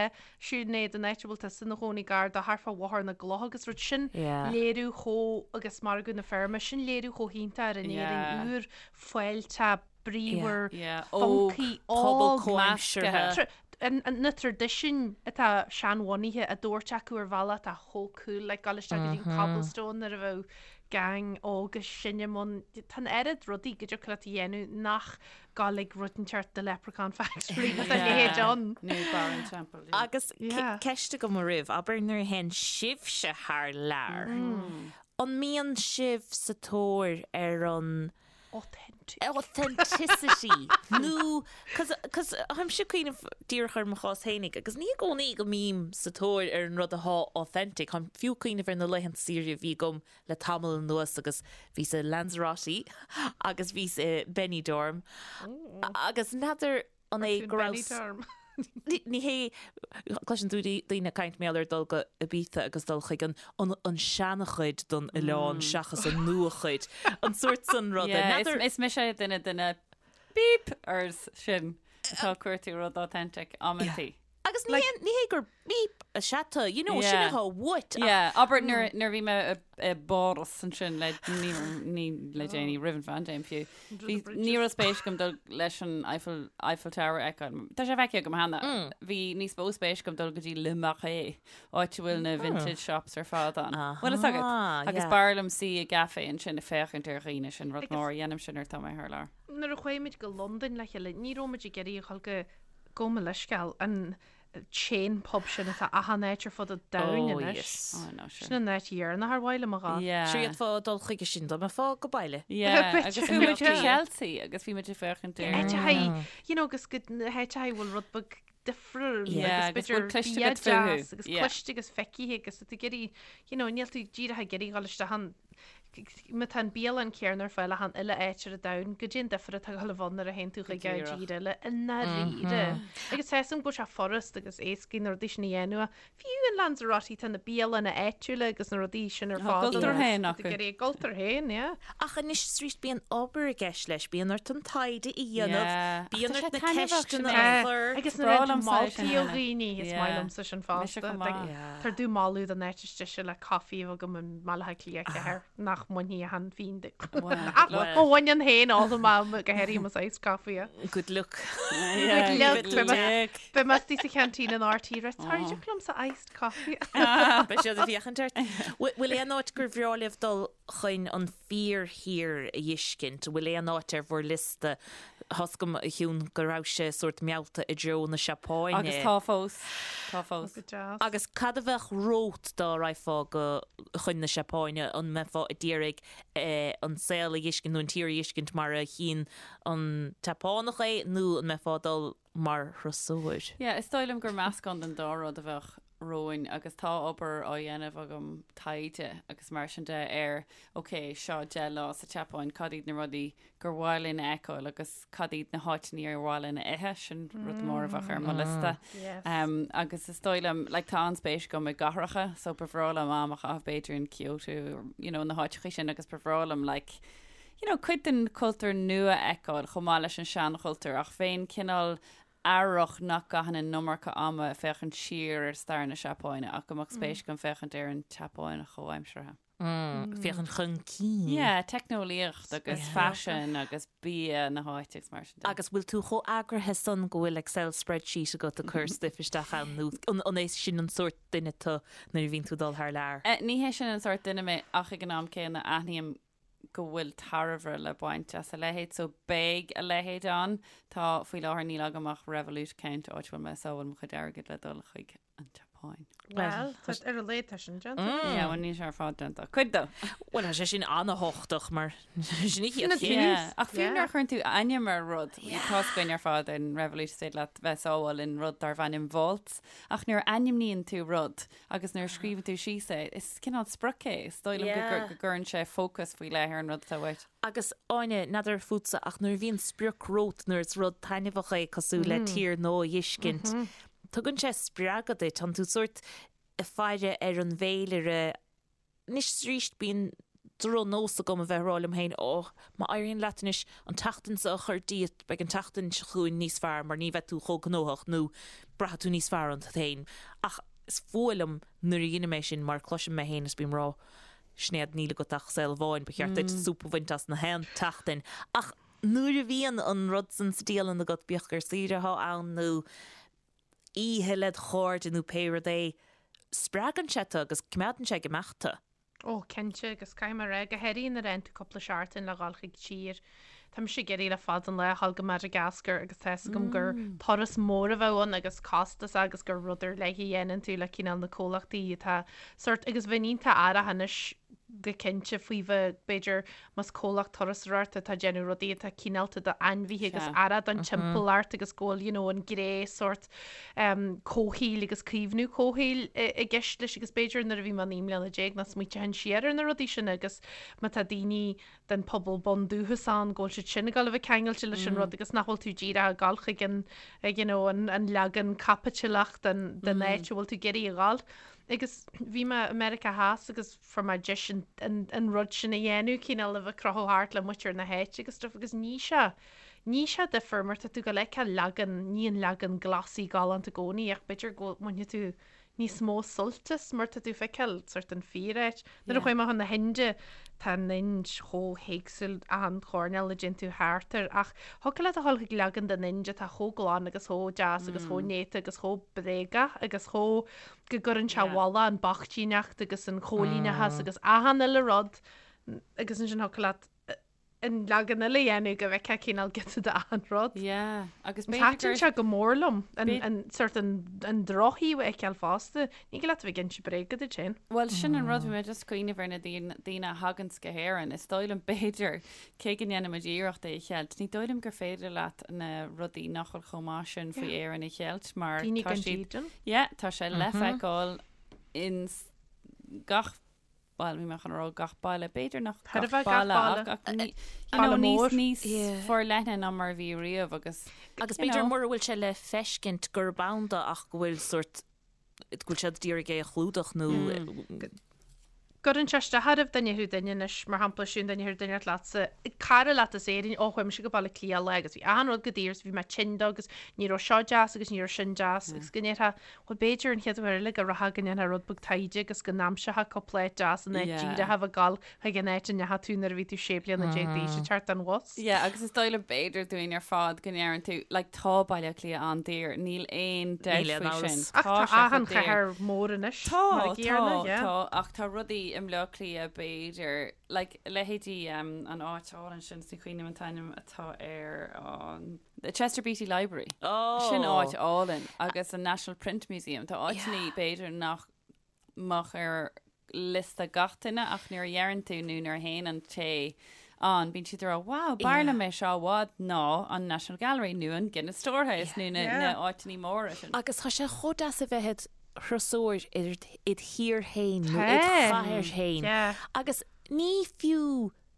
Sinéad an áit a bhfuil tusa ina chónaí gar do thart fá Bhóthar na gCloch agus rud sin Yeah. léiriú chomh agus Margadh na Feirme sin léiriú chomh hiontach ar an Yeah. Éirinn úr fáilteach bríomhar Yeah, óg, funky pobal óg comhaimseartha. Tra- an- an- na traidisiúin atá seanbhunaithe á dtabhairt acu ar bhealach atá chomh cool like dul isteach go dtí an Cobblestone nuair a bheadh gang óg is sine ann tá an oiread rudaí go dtiocfadh leat a dhéanamh nach gabháil ag rud inteacht The Leprechaun Factory nó a leithéid ann. Nó Barra an Teampaill. yeah. Agus Yeah. ceist agam oraibh, abair nuair a théann sibhse thar lear, an mbíonn sibh sa tóir ar an Authentic. authenticity nó cos cos táimse ag cuimhneamh díreach ar mo chás fhéinig agus ní i gcónaí go mbím sa tóir ar an rud atá authentic, táim fiú ag cuimhneamh ar na laethanta saoire a bhí agam le tamall anuas agus bhíos i Lanzarote agus bhíos i Benidorm agus n'fheadar an é go raibh Benidorm. Ní hé, cloiseann tú daoine ag caint mar gheall ar dul go Ibiza agus dul chuig an an an seanchuid den oileán seachas an nuachuid, an sórt san ruda. Yeah, N'fheadar is mise duine de na beep-ers sin atá ag cuartú rud authentic amantaí. Agus ní hé ní hé gur beep is ea tú, you know, sin Yeah. atá uait ach Yeah, abair nuair nuair a bhí mé i i bPáras ansin le ní ní le déanaí roimh an phaindéim fiú. Bhí ní raibh spéis agam dul leis an Eiffel Eiffel Tower a fheiceáil. Tá sé feicthe agam cheana. Bhí níos mó spéis agam dul go dtí Le Marais, áit a bhfuil na vintage shops ar fad ann. Bhfuil fhios agat? Aha, Agus yeah. b'fhearr liom suí i gcaife ansin ag féachaint ar dhaoine sin rud Agus- mór a dhéanaim sin nuair atá mé thar lear. Nuair a chuaigh muid go Londain le chéile, ní raibh muid ag iarraidh a dhul go Gabh mo leithscéal, an chain pub sin atá achan áit ar fud an domhain Oh, anois. yes. Oh, no, sure. Sin an áit dheireanach ar mhaith liom a ghabháil. Yeah. Sure d'fhéadfá dul chuige sin dá mbeifeá go baile. Yeah, Bit agus bhí muid yeah. i Chelsea agus bhí muid ag féachaint ar Áiteachaí, you know, agus go na háiteachaí bhfuil rud beag difriúil Yeah, agus agus bhfuil b'fhéidir cliste bia agat fúthu. deas agus Yeah. cliste agus feicthe agus tá tú ag iarraidh, you know, níl tú díreach ag iarraidh dhul isteach ann Má tá an bialann céanna ar fáil achan uile áit ar an domhan, goidé an difear atá ag dul a bheith ann nuair a théann tú chuig Go díreach. tír eile i ndáiríre. Agus tá 'fhios a'm go bhfuil sé furast agus éascaí na rudaí sin a dhéanamh. Fiú in Lanzarote tá na bialanna áitiúla agus na rudaí sin ar Tá a fáil. gcultúr féin Tá tú acu. ag iarraidh a gcultúr féin, yeah. Ach anois is arís bíonn obair i gceist leis, bíonn ort an taighde a dhéanamh, Yeah. Ach bíonn tá ort sé na taitneamhach sin ceisteanna é. a chur. Agus Is nuair breá a liomsa é sin moltaí ó cheana. dhaoine, is maith Yeah. liomsa sin Mise fosta. chomh maith. Yeah. Tar domh moladh don áit is deise le caife a bheith agam i mBaile Átha Cliath 4 nach. mbainfidh achan phingin de. Ach mo mhuinín féin ólfaidh mé go háirithe mo iced coffee. Good luck. Good luck. Beidh mé istigh sa cheaintín in RTÉ rá sorry deoch liomsa iced coffee. Beidh siad ag féachaint ort. Bhfuil aon áit gur bhreá libh dul chun an fíorthír a dh'fheiscint? An bhfuil aon áit ar bhur liosta? Tá's agam, a Shiún, go raibhse sórt meallta i dtreo na Seapáine. Agus tá fós. Tá fós. Go deas. Agus cad a bheadh romhat dá raghfá go chun na Seapáine? An mbeifeá ag iarraidh an saol a dh'fheiscint nó an tír a dh'fheiscint mar a chíonn an tSeapánach é nó an mbeifeá ag dul mar thurasóir? Yeah, is dóigh liom gur meascán den dá rud a bheadh romhainn agus tá obair á dhéanamh agam, taighde agus mar sin de ar ok, seo 10 lá sa tSeapáin, cad iad na rudaí gur mhaith linn a fheiceáil agus cad iad na háiteanna ar mhaith linn a ithe, sin rud mór a bheadh ar mo liosta. Um, agus is dóigh liom, like, tá an-spéis agam i gcathracha, so ba bhreá liom am a chaitheamh b'fhéidir in Kyoto, or, you know, na háiteacha sin agus ba bhreá liom, like, you know, cuid den chultúr nua a fheiceáil chomh maith leis an seanchultúr ach bheinn cineál aireach nach gcaithfinn an iomarca ama ag féachaint siar ar stair na Seapáine ach go mbeadh spéis agam féachaint ar an tSeapáin chomhaimseartha. Féachaint chun cinn. Yeah, teicneolaíocht agus faisean agus bia na háite agus mar sin de. Agus bhfuil tú chomh eagraithe san go bhfuil Excel spreadsheet agat ag cur stuif isteach ann nó an é sin an sórt duine tú nuair a bhíonn tú ag dul thar lear? Ní hé sin an sórt duine mé ach ag an am céanna aithním go bhfuil tairbhe le baint as a leithéid so beidh a leithéid ann. Tá, faoi láthair níl agam ach Revolut account áit a bhfuil mé ag sábháil mo chuid airgid le dul chuig an tSeapáin. Bhuel, tá ar a laghad tá sin déanta. Yeah, bhuel níl sé ar fad déanta. Cuid dó! Bhuel, tá sé sin an-thábhachtach mar sin an chéad chéim. Yeah, ach fiú nuair a chuireann tú ainm ar rud, tá's againn ar fad in Revolut is féidir leat bheith ag sábháil in rud darb ainm Vaults, ach nuair a ainmníonn tú rud agus nuair a scríobhann tú síos é, is cineál sprioc é. Is dóigh liom go gcuireann sé fócas faoi leith ar an rud atá uait. Agus, Áine, n'fheadar fútsa, ach nuair a bhíonn sprioc romhat, nuair is rud taitneamhach é cosúil le tír nua a dh'fheiscint, tugann sé spreagadh duit, tánn tú sórt ag faire ar an bhféilire. Anois is arís bíonn drochnós agam a bheith ag rá liom féin, Ó, má éiríonn leat anois an tseachtain seo a chur díot, beidh an tseachtain seo chugainn níos fearr mar ní bheidh tú chomh gnóthach nó braithfidh tú níos fearr ionat féin. Ach is fuath liom nuair a dheinim é sin mar cloisim mé féin is bím ag rá, Sinéad, níl agat ach saol amháin, ba cheart duit súp a bhaint as na haon tseachtain. Ach nuair a bhíonn an rud san sa dialann agat, bíodh gur saoire atá ann nó oíche led chairde nó pé rud é, spreagann sé tú agus coimeádann sé ag imeacht tú. Ó, cinnte, agus caithfidh mé a rá, go háirithe nuair a fhaigheann tú cúpla seachtain le dhul chuig tír. Tá mise ag iarraidh le fada an lá a dhul go Madagascar agus tá fhios agam gur turas mór a bheadh ann agus costasach agus gur rud ar leith a dhéanann tú le cineál na comhlachtaí atá sórt agus bheinn iontach aireach anois go cinnte faoi bheith b'fhéidir más comhlacht turasóireachta atá ag déanamh rudaí atá cineálta d'ainmhithe agus aireach don timpeallacht agus go bhfuil you know an gné sórt comhshaoil agus caomhnú comhshaoil i gceist leis agus b'fhéidir nuair a bhí mé 19 mbliana nach smaointeoinn siar ar na rudaí sin agus má tá daoine den pobal bundúchas ann go bhfuil siad sin ag dul a bheith ceangailte leis an rud agus nach bhfuil tú díreach ag dul chuig an you know an an leagan caipitileach den den áit a bhfuil tú ag iarraidh a dhul. Agus bhí mé i Meiriceá Theas agus fuair mé deis an an an rud sin a dhéanamh, cineál a bheith ag crochadh thart le muintir na háite agus stuff agus ní sé ní sé difear mar tá tú ag dul a fheiceáil leagan ní an leagan glossy galánta i gcónaí ach b'fhéidir go mbainfidh tú níos mó suilt as mar tá tú ag feiceáil sort an fíor-áit. Nuair a chuaigh mé chun na hInde, tá an Ind chomh héagsúil achan choirnéal a dtéann tú thart air ach thiocfadh leat a dhul chuig leagan den Ind atá chomh glan agus chomh deas agus chomh néata agus chomh bréagach agus chomh go gcuireann sé i bhfolach an bochtaíneacht agus an choilíneachas agus achan uile rud agus ansin thiocfadh leat an leagan eile a dhéanamh go bhfeicfeá cineál giota de achan rud. Yeah, agus b'fhéidir gur... Thaitin sé go mór liom, an sort an an drochthaobh a fheiceáil fosta. Ní thig leat a bheith ag inse bréaga duit féin. Bhuel, sin an rud, bhí mé just ag cuimhneamh ar na daoine a thaganns go hÉirinn. Is dóigh liom, b'fhéidir, cé go ndéanaimid iarracht é a cheilt, ní dóigh liom gur féidir leat na rudaí nach bhfuil chomh maith sin faoi Éirinn a cheilt mar Daoine tá gan siad... dídean. Yeah, tá sé le feiceáil in gach bhuel, bhí mé chun a rá gach baile, b'fhéidir nach Chóir a gach bheith gach baile baile. ach, ach ní, you Baile know, níos, mór. níos Yeah. forleithne ná mar a bhí riamh agus, Agus you b'fhéidir know. mura bhfuil sé le feiscint gurb ann do ach go bhfuil sórt, go bhfuil siad ag iarraidh é a chlúdach nó. gcuireann sé isteach oraibh dá ndéarfadh duine anois, mar shampla, Siún, dá ndéarfadh duine leatsa, cara leat as Éirinn, ó chuaigh mise go Baile Átha Cliath lá agus bhí achan rud go daor is bhí mé tinn dó agus ní raibh seo deas agus ní raibh sin deas agus go ndéarfá, bhuel b'fhéidir an chéad uair eile go rachfá go ndéanfá rud beag taighde agus go n-aimseofá cúpla áit deas in áit díreach a bheith ag gabháil chuig an áit a ndeachaigh tú nuair a bhí tú 16 bliana d'aois ag teacht den bhus. Yeah, agus is dóigh liom b'fhéidir dúinn ar fad go ndeireann tú, like, tá Baile Átha Cliath an-daor, níl aon dabht Níl aon faoi sin. amhras. Ach Tá tá sé chomh achan daor. chathair mór anois, Tá, mar a tá, gcéanna, yeah. tá, ach tá rudaí i mBleá Cliath b'fhéidir, like, leithéidí um, an áit álainn sin, is ní chuimhním an t-ainm atá air, an The Chester Beatty Library. Oh. Sin áit álainn agus an National Print Museum. Tá áiteanna b'fhéidir nach mbeadh ar liosta gach duine ach nuair a dheireann tú nó nuair a théann an té ann, bíonn siad ag rá wow, b'fhearr liom é seo i bhfad ná an National Gallery nó an Guinness Storehouse nó na na áiteanna móra sin. Agus tá sé chomh deas a bheith id thurasóir id thír féin nó id chathair féin agus ní fiú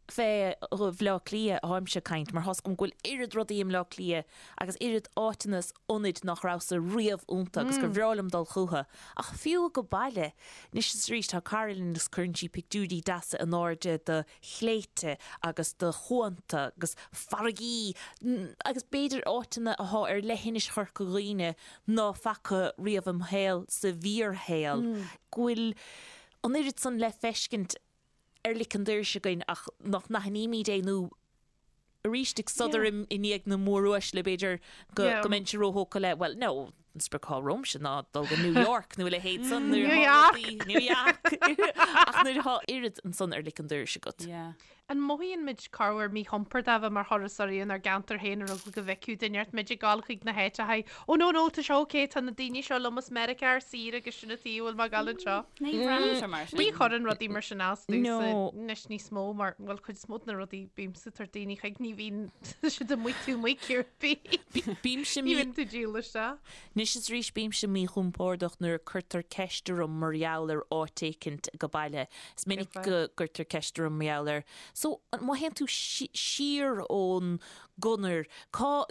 fé Bhleá Cliath atáimse ag caint, mar tá's agam go bhfuil oiread rudaí i mBleá Cliath agus oiread áiteanna is ionaid nach rabhas-sa riamh iontu agus gur bhreá liom dul chucu. Ach fiú go baile, anois is arís tá cara linn agus cuireann sí pictiúirí deasa in airde de shléibhte agus de chuanta agus farraigí agus b'fhéidir áiteanna athá ar leithinis Chorca Dhuibhne ná faca riamh im shaol sa bhfíorshaol, go bhfuil an oiread san le feiscint ar lic an doiris againn ach nach n-aithnímid é nó arís ag sodar i ndiaidh na móruaisle b'fhéidir go go mbeinnse róthógtha le bhuel no an sprioc atá romhamsa ná dul go New York nó a leithéid san nuair New atá York! rudaí New York! ach nuair atá oiread ansan ar lic an doiris agat. Yeah. An mothaíonn muid corruair míchompordach a bheith mar thurasóirí inár gceantar féin ar eagla go bhfeicfeadh duine ort muid ag gabháil chuig na háiteacha Ó no no, tá sé ok, tá na daoine seo liom as Meiriceá ar saoire agus sin an tuige a bhfuil mé ag gabháil anseo. Ní bhraitheann sé mar sin. Ní chuireann rudaí mar sin as domhsa No. anois níos mó mar, bhuel, cuid is mó de na rudaí bímse ag tabhairt daoine chuig ní bhíonn siad amuigh tú amuigh cibé. Bímse Ní mí bhíonn tú díol isteach. Anois is arís bímse míchompordach nuair a cuirtear ceist orm mar gheall ar áit éicint go baile. Is minic go gcuirtear ceist orm mar gheall ar, so, má théann tú siar ón gconair, cá,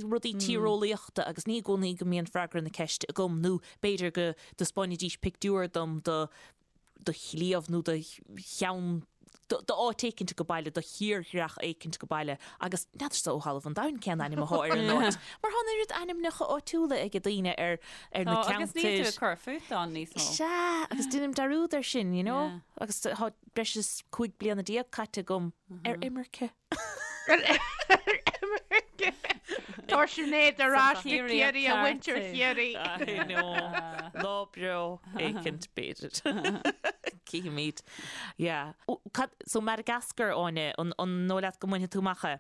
rudaí tíreolaíochta agus ní i gcónaí go mbíonn freagra na ceiste agam nó b'fhéidir go dtaispeánfaidís pictiúr dom de do shliabh nó de cheann, d'áit éicint go baile, de thírdhreach éicint go baile agus n'fheadarsa ó thalamh an domhain cén ainm athá ar an áit. Mar thá an oiread ainmneacha áitiúla ag daoine ar ar na Tá, agus níl tú ceantair. ag cur fút ann níos mó. Sea, agus deinim dearúd air sin, you know? Yeah. Agus tá breis is 15 bliana caite agam ar imirce. Ar imirce. Tá Sinéad ar ais go Ciarraí a mhuintir Chiarraí. I know. Lá breá éicint b'fhéidir. Cífimid. Yeah. Cad, so Madagascar, Áine, an, an dóigh leat go mbainfidh tú amach é?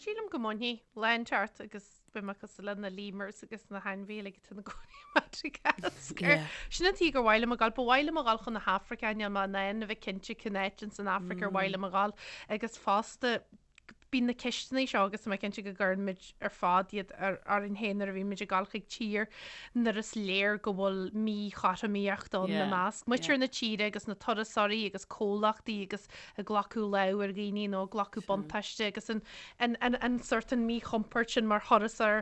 Sílim go mbainfidh. Lá inteacht agus beidh mé cosúil le na lemurs agus na hainmhithe uilig atá ina gcónaí i Madagascar. Yeah. Sin an tuige gur mhaith liom a ghabháil. Ba mhaith liom a ghabháil chun na hAfraice, níl mé in ann a bheith cinnte cén áit ins an Afraic ar mhaith liom a ghabháil. Agus fosta, bíonn na ceisteanna seo agus tá mé cinnte go gcuireann muid ar fad iad ar orainn féin nuair a bhíonn muid ag gabháil chuig tír nuair is léir go bhfuil míchothromaíocht ann i measc muintir na tíre agus na turasóirí agus comhlachtaí agus ag glacadh lámh ar dhaoine nó ag glacadh buntáiste agus an an an an sort an míchompord sin mar thurasóir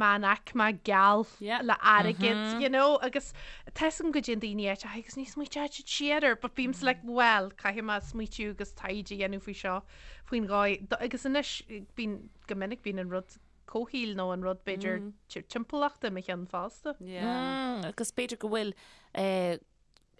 meánaicme geal le airgead you know agus tá 'fhios agam go dtéann daoine áit agus ní smaoiteoidh siad siar air but bímse like well caithfidh mé smaoitiú agus taighde a dhéanamh faoi seo faoin dhóigh agus anois bíonn go minic bíonn an rud comhshaoil nó an rud b'fhéidir timpeallachta i mo cheann fosta. Yeah. Agus b'fhéidir go bhfuil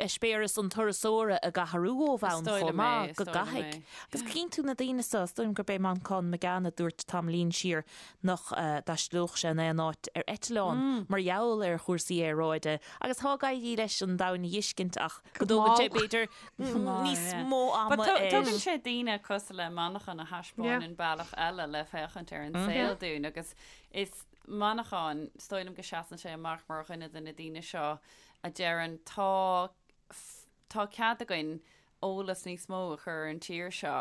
eispéireas an turasóra ag athrú ó bhonn chomh maith, go gcaithfidh. Agus cíonn tú na daoine seo, is dóigh liom gurb é Manchán Magan a dúirt tamaillín siar nach dtaistealódh sé in aon áit ar eitleán mar gheall ar chúrsaí aeráide agus tá ag éirí leis an domhan a dh'fheiscint ach go dtógann sé b'fhéidir níos mó ama air. Tugann sé daoine cosúil le Manchán a thaispeánann bealach eile le féachaint ar an saol dúinn agus is Manchán, is dóigh liom go seasann sé amach mar dhuine de na daoine seo a deireann tá tá cead againn eolas níos mó a chur ar an tír seo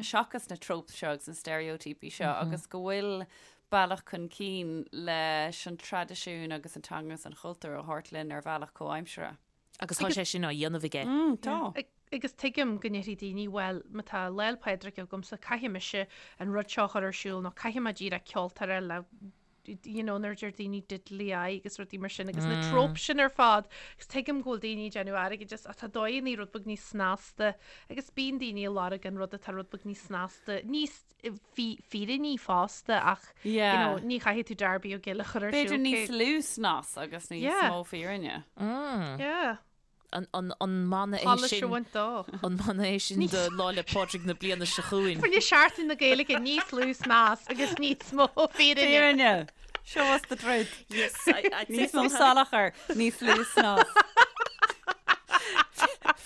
seachas na tropes seo agus na steiréitíopaí seo agus go bhfuil bealach chun cinn leis an traidisiún agus an teanga agus an chultúr a thabhairt linn ar bhealach comhaimseartha. Agus tá sé sin á dhéanamh aige. Tá. Agus tuigim go ndéarfaidh daoine, bhuel, má tá Lá 'le Pádraig agamsa, caithfidh mise an rud seo a chur ar siúl nó caithfidh mé díreach ceoltóir le. you know, nuair a deir daoine diddly aye agus rudaí mar sin agus na tropes sin ar fad agus tuigim go bhfuil daoine ag déanamh airgid as ach tá dóigheannaí rud beag níos snasta agus bíonn daoine ag lorg an rud atá rud beag níos snasta, níos fírinní fosta ach you know, ní chaithfidh tú Darby O'Gill a chur ar siúl. B'fhéidir níos lú snas agus níos mó fírinne. Yeah. An mana é sin An mana é sin do Lá 'le Pádraig na bliana seo chugainn? Fá choinne Seachtain na Gaeilge níos lú snas agus níos mó fírinne. Fírinne! Show us the truth. Yes, I'd say Níos mó salachar, níos lú snas.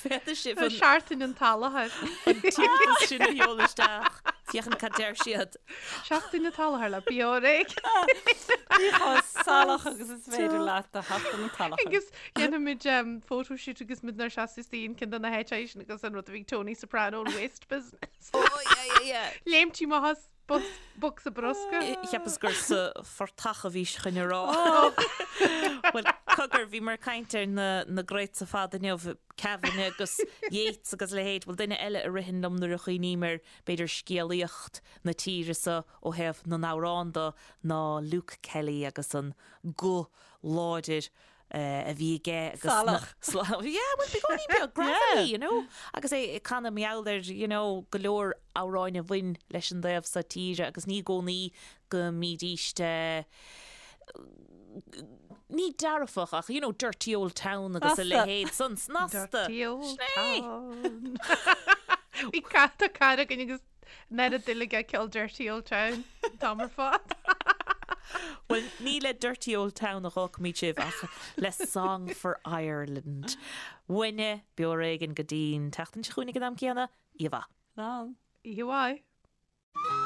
Féadfaidh sibh an Seachtain an tSalachair. An t-iarratas sin a sheoladh isteach. Féachaint cad deir siad. Seachtain an tSalachair le Beo Ar Éigean. Bí chomh salach agus is féidir leat do Sheachtain an tSalachair. Agus dhéanfaimid photoshoot agus muid inár seasamh istigh in ceann de na háiteacha sin agus an rud a bhí ag Tony Soprano an waste business. Oh yeah yeah yeah. Léimtí amach as bocsa bruscair. Cheapas gur sa phortach a bhís chun a rá. Bhuel, cogar, bhíomar ag caint ar na na greats ar fad inniu, Kavanagh agus Yeats agus a leithéid. Bhuel, duine eile a ritheann liom nuair a chuimhním ar, b'fhéidir, scéalaíocht na tíre so ó thaobh na n-amhrán de ná Luke Kelly agus an guth láidir a bhí aige agus Salach. Yeah, bhuel, beagáinín beag, gravelly, you know, agus é ag canadh mar gheall ar, you know, go leor amhráin a bhain leis an dtaobh so tíre agus ní i gcónaí go mbídíst ní dearfach ach, you know, dirty old town agus a leithéid san, snasta. Dirty old town. Bhí cat tá cara againn agus An oiread dúil aige i gceol Dirty Old Town an t-am ar fad. Bhuel, ní le Dirty Old Town a dh'fhágfaimid sibh ach le Song for Ireland. Uainne, beo ar éigean go dtí'n tseachtain seo chugainn ag an am céanna. Oíche mhaith. Slán. Oíche mhaith.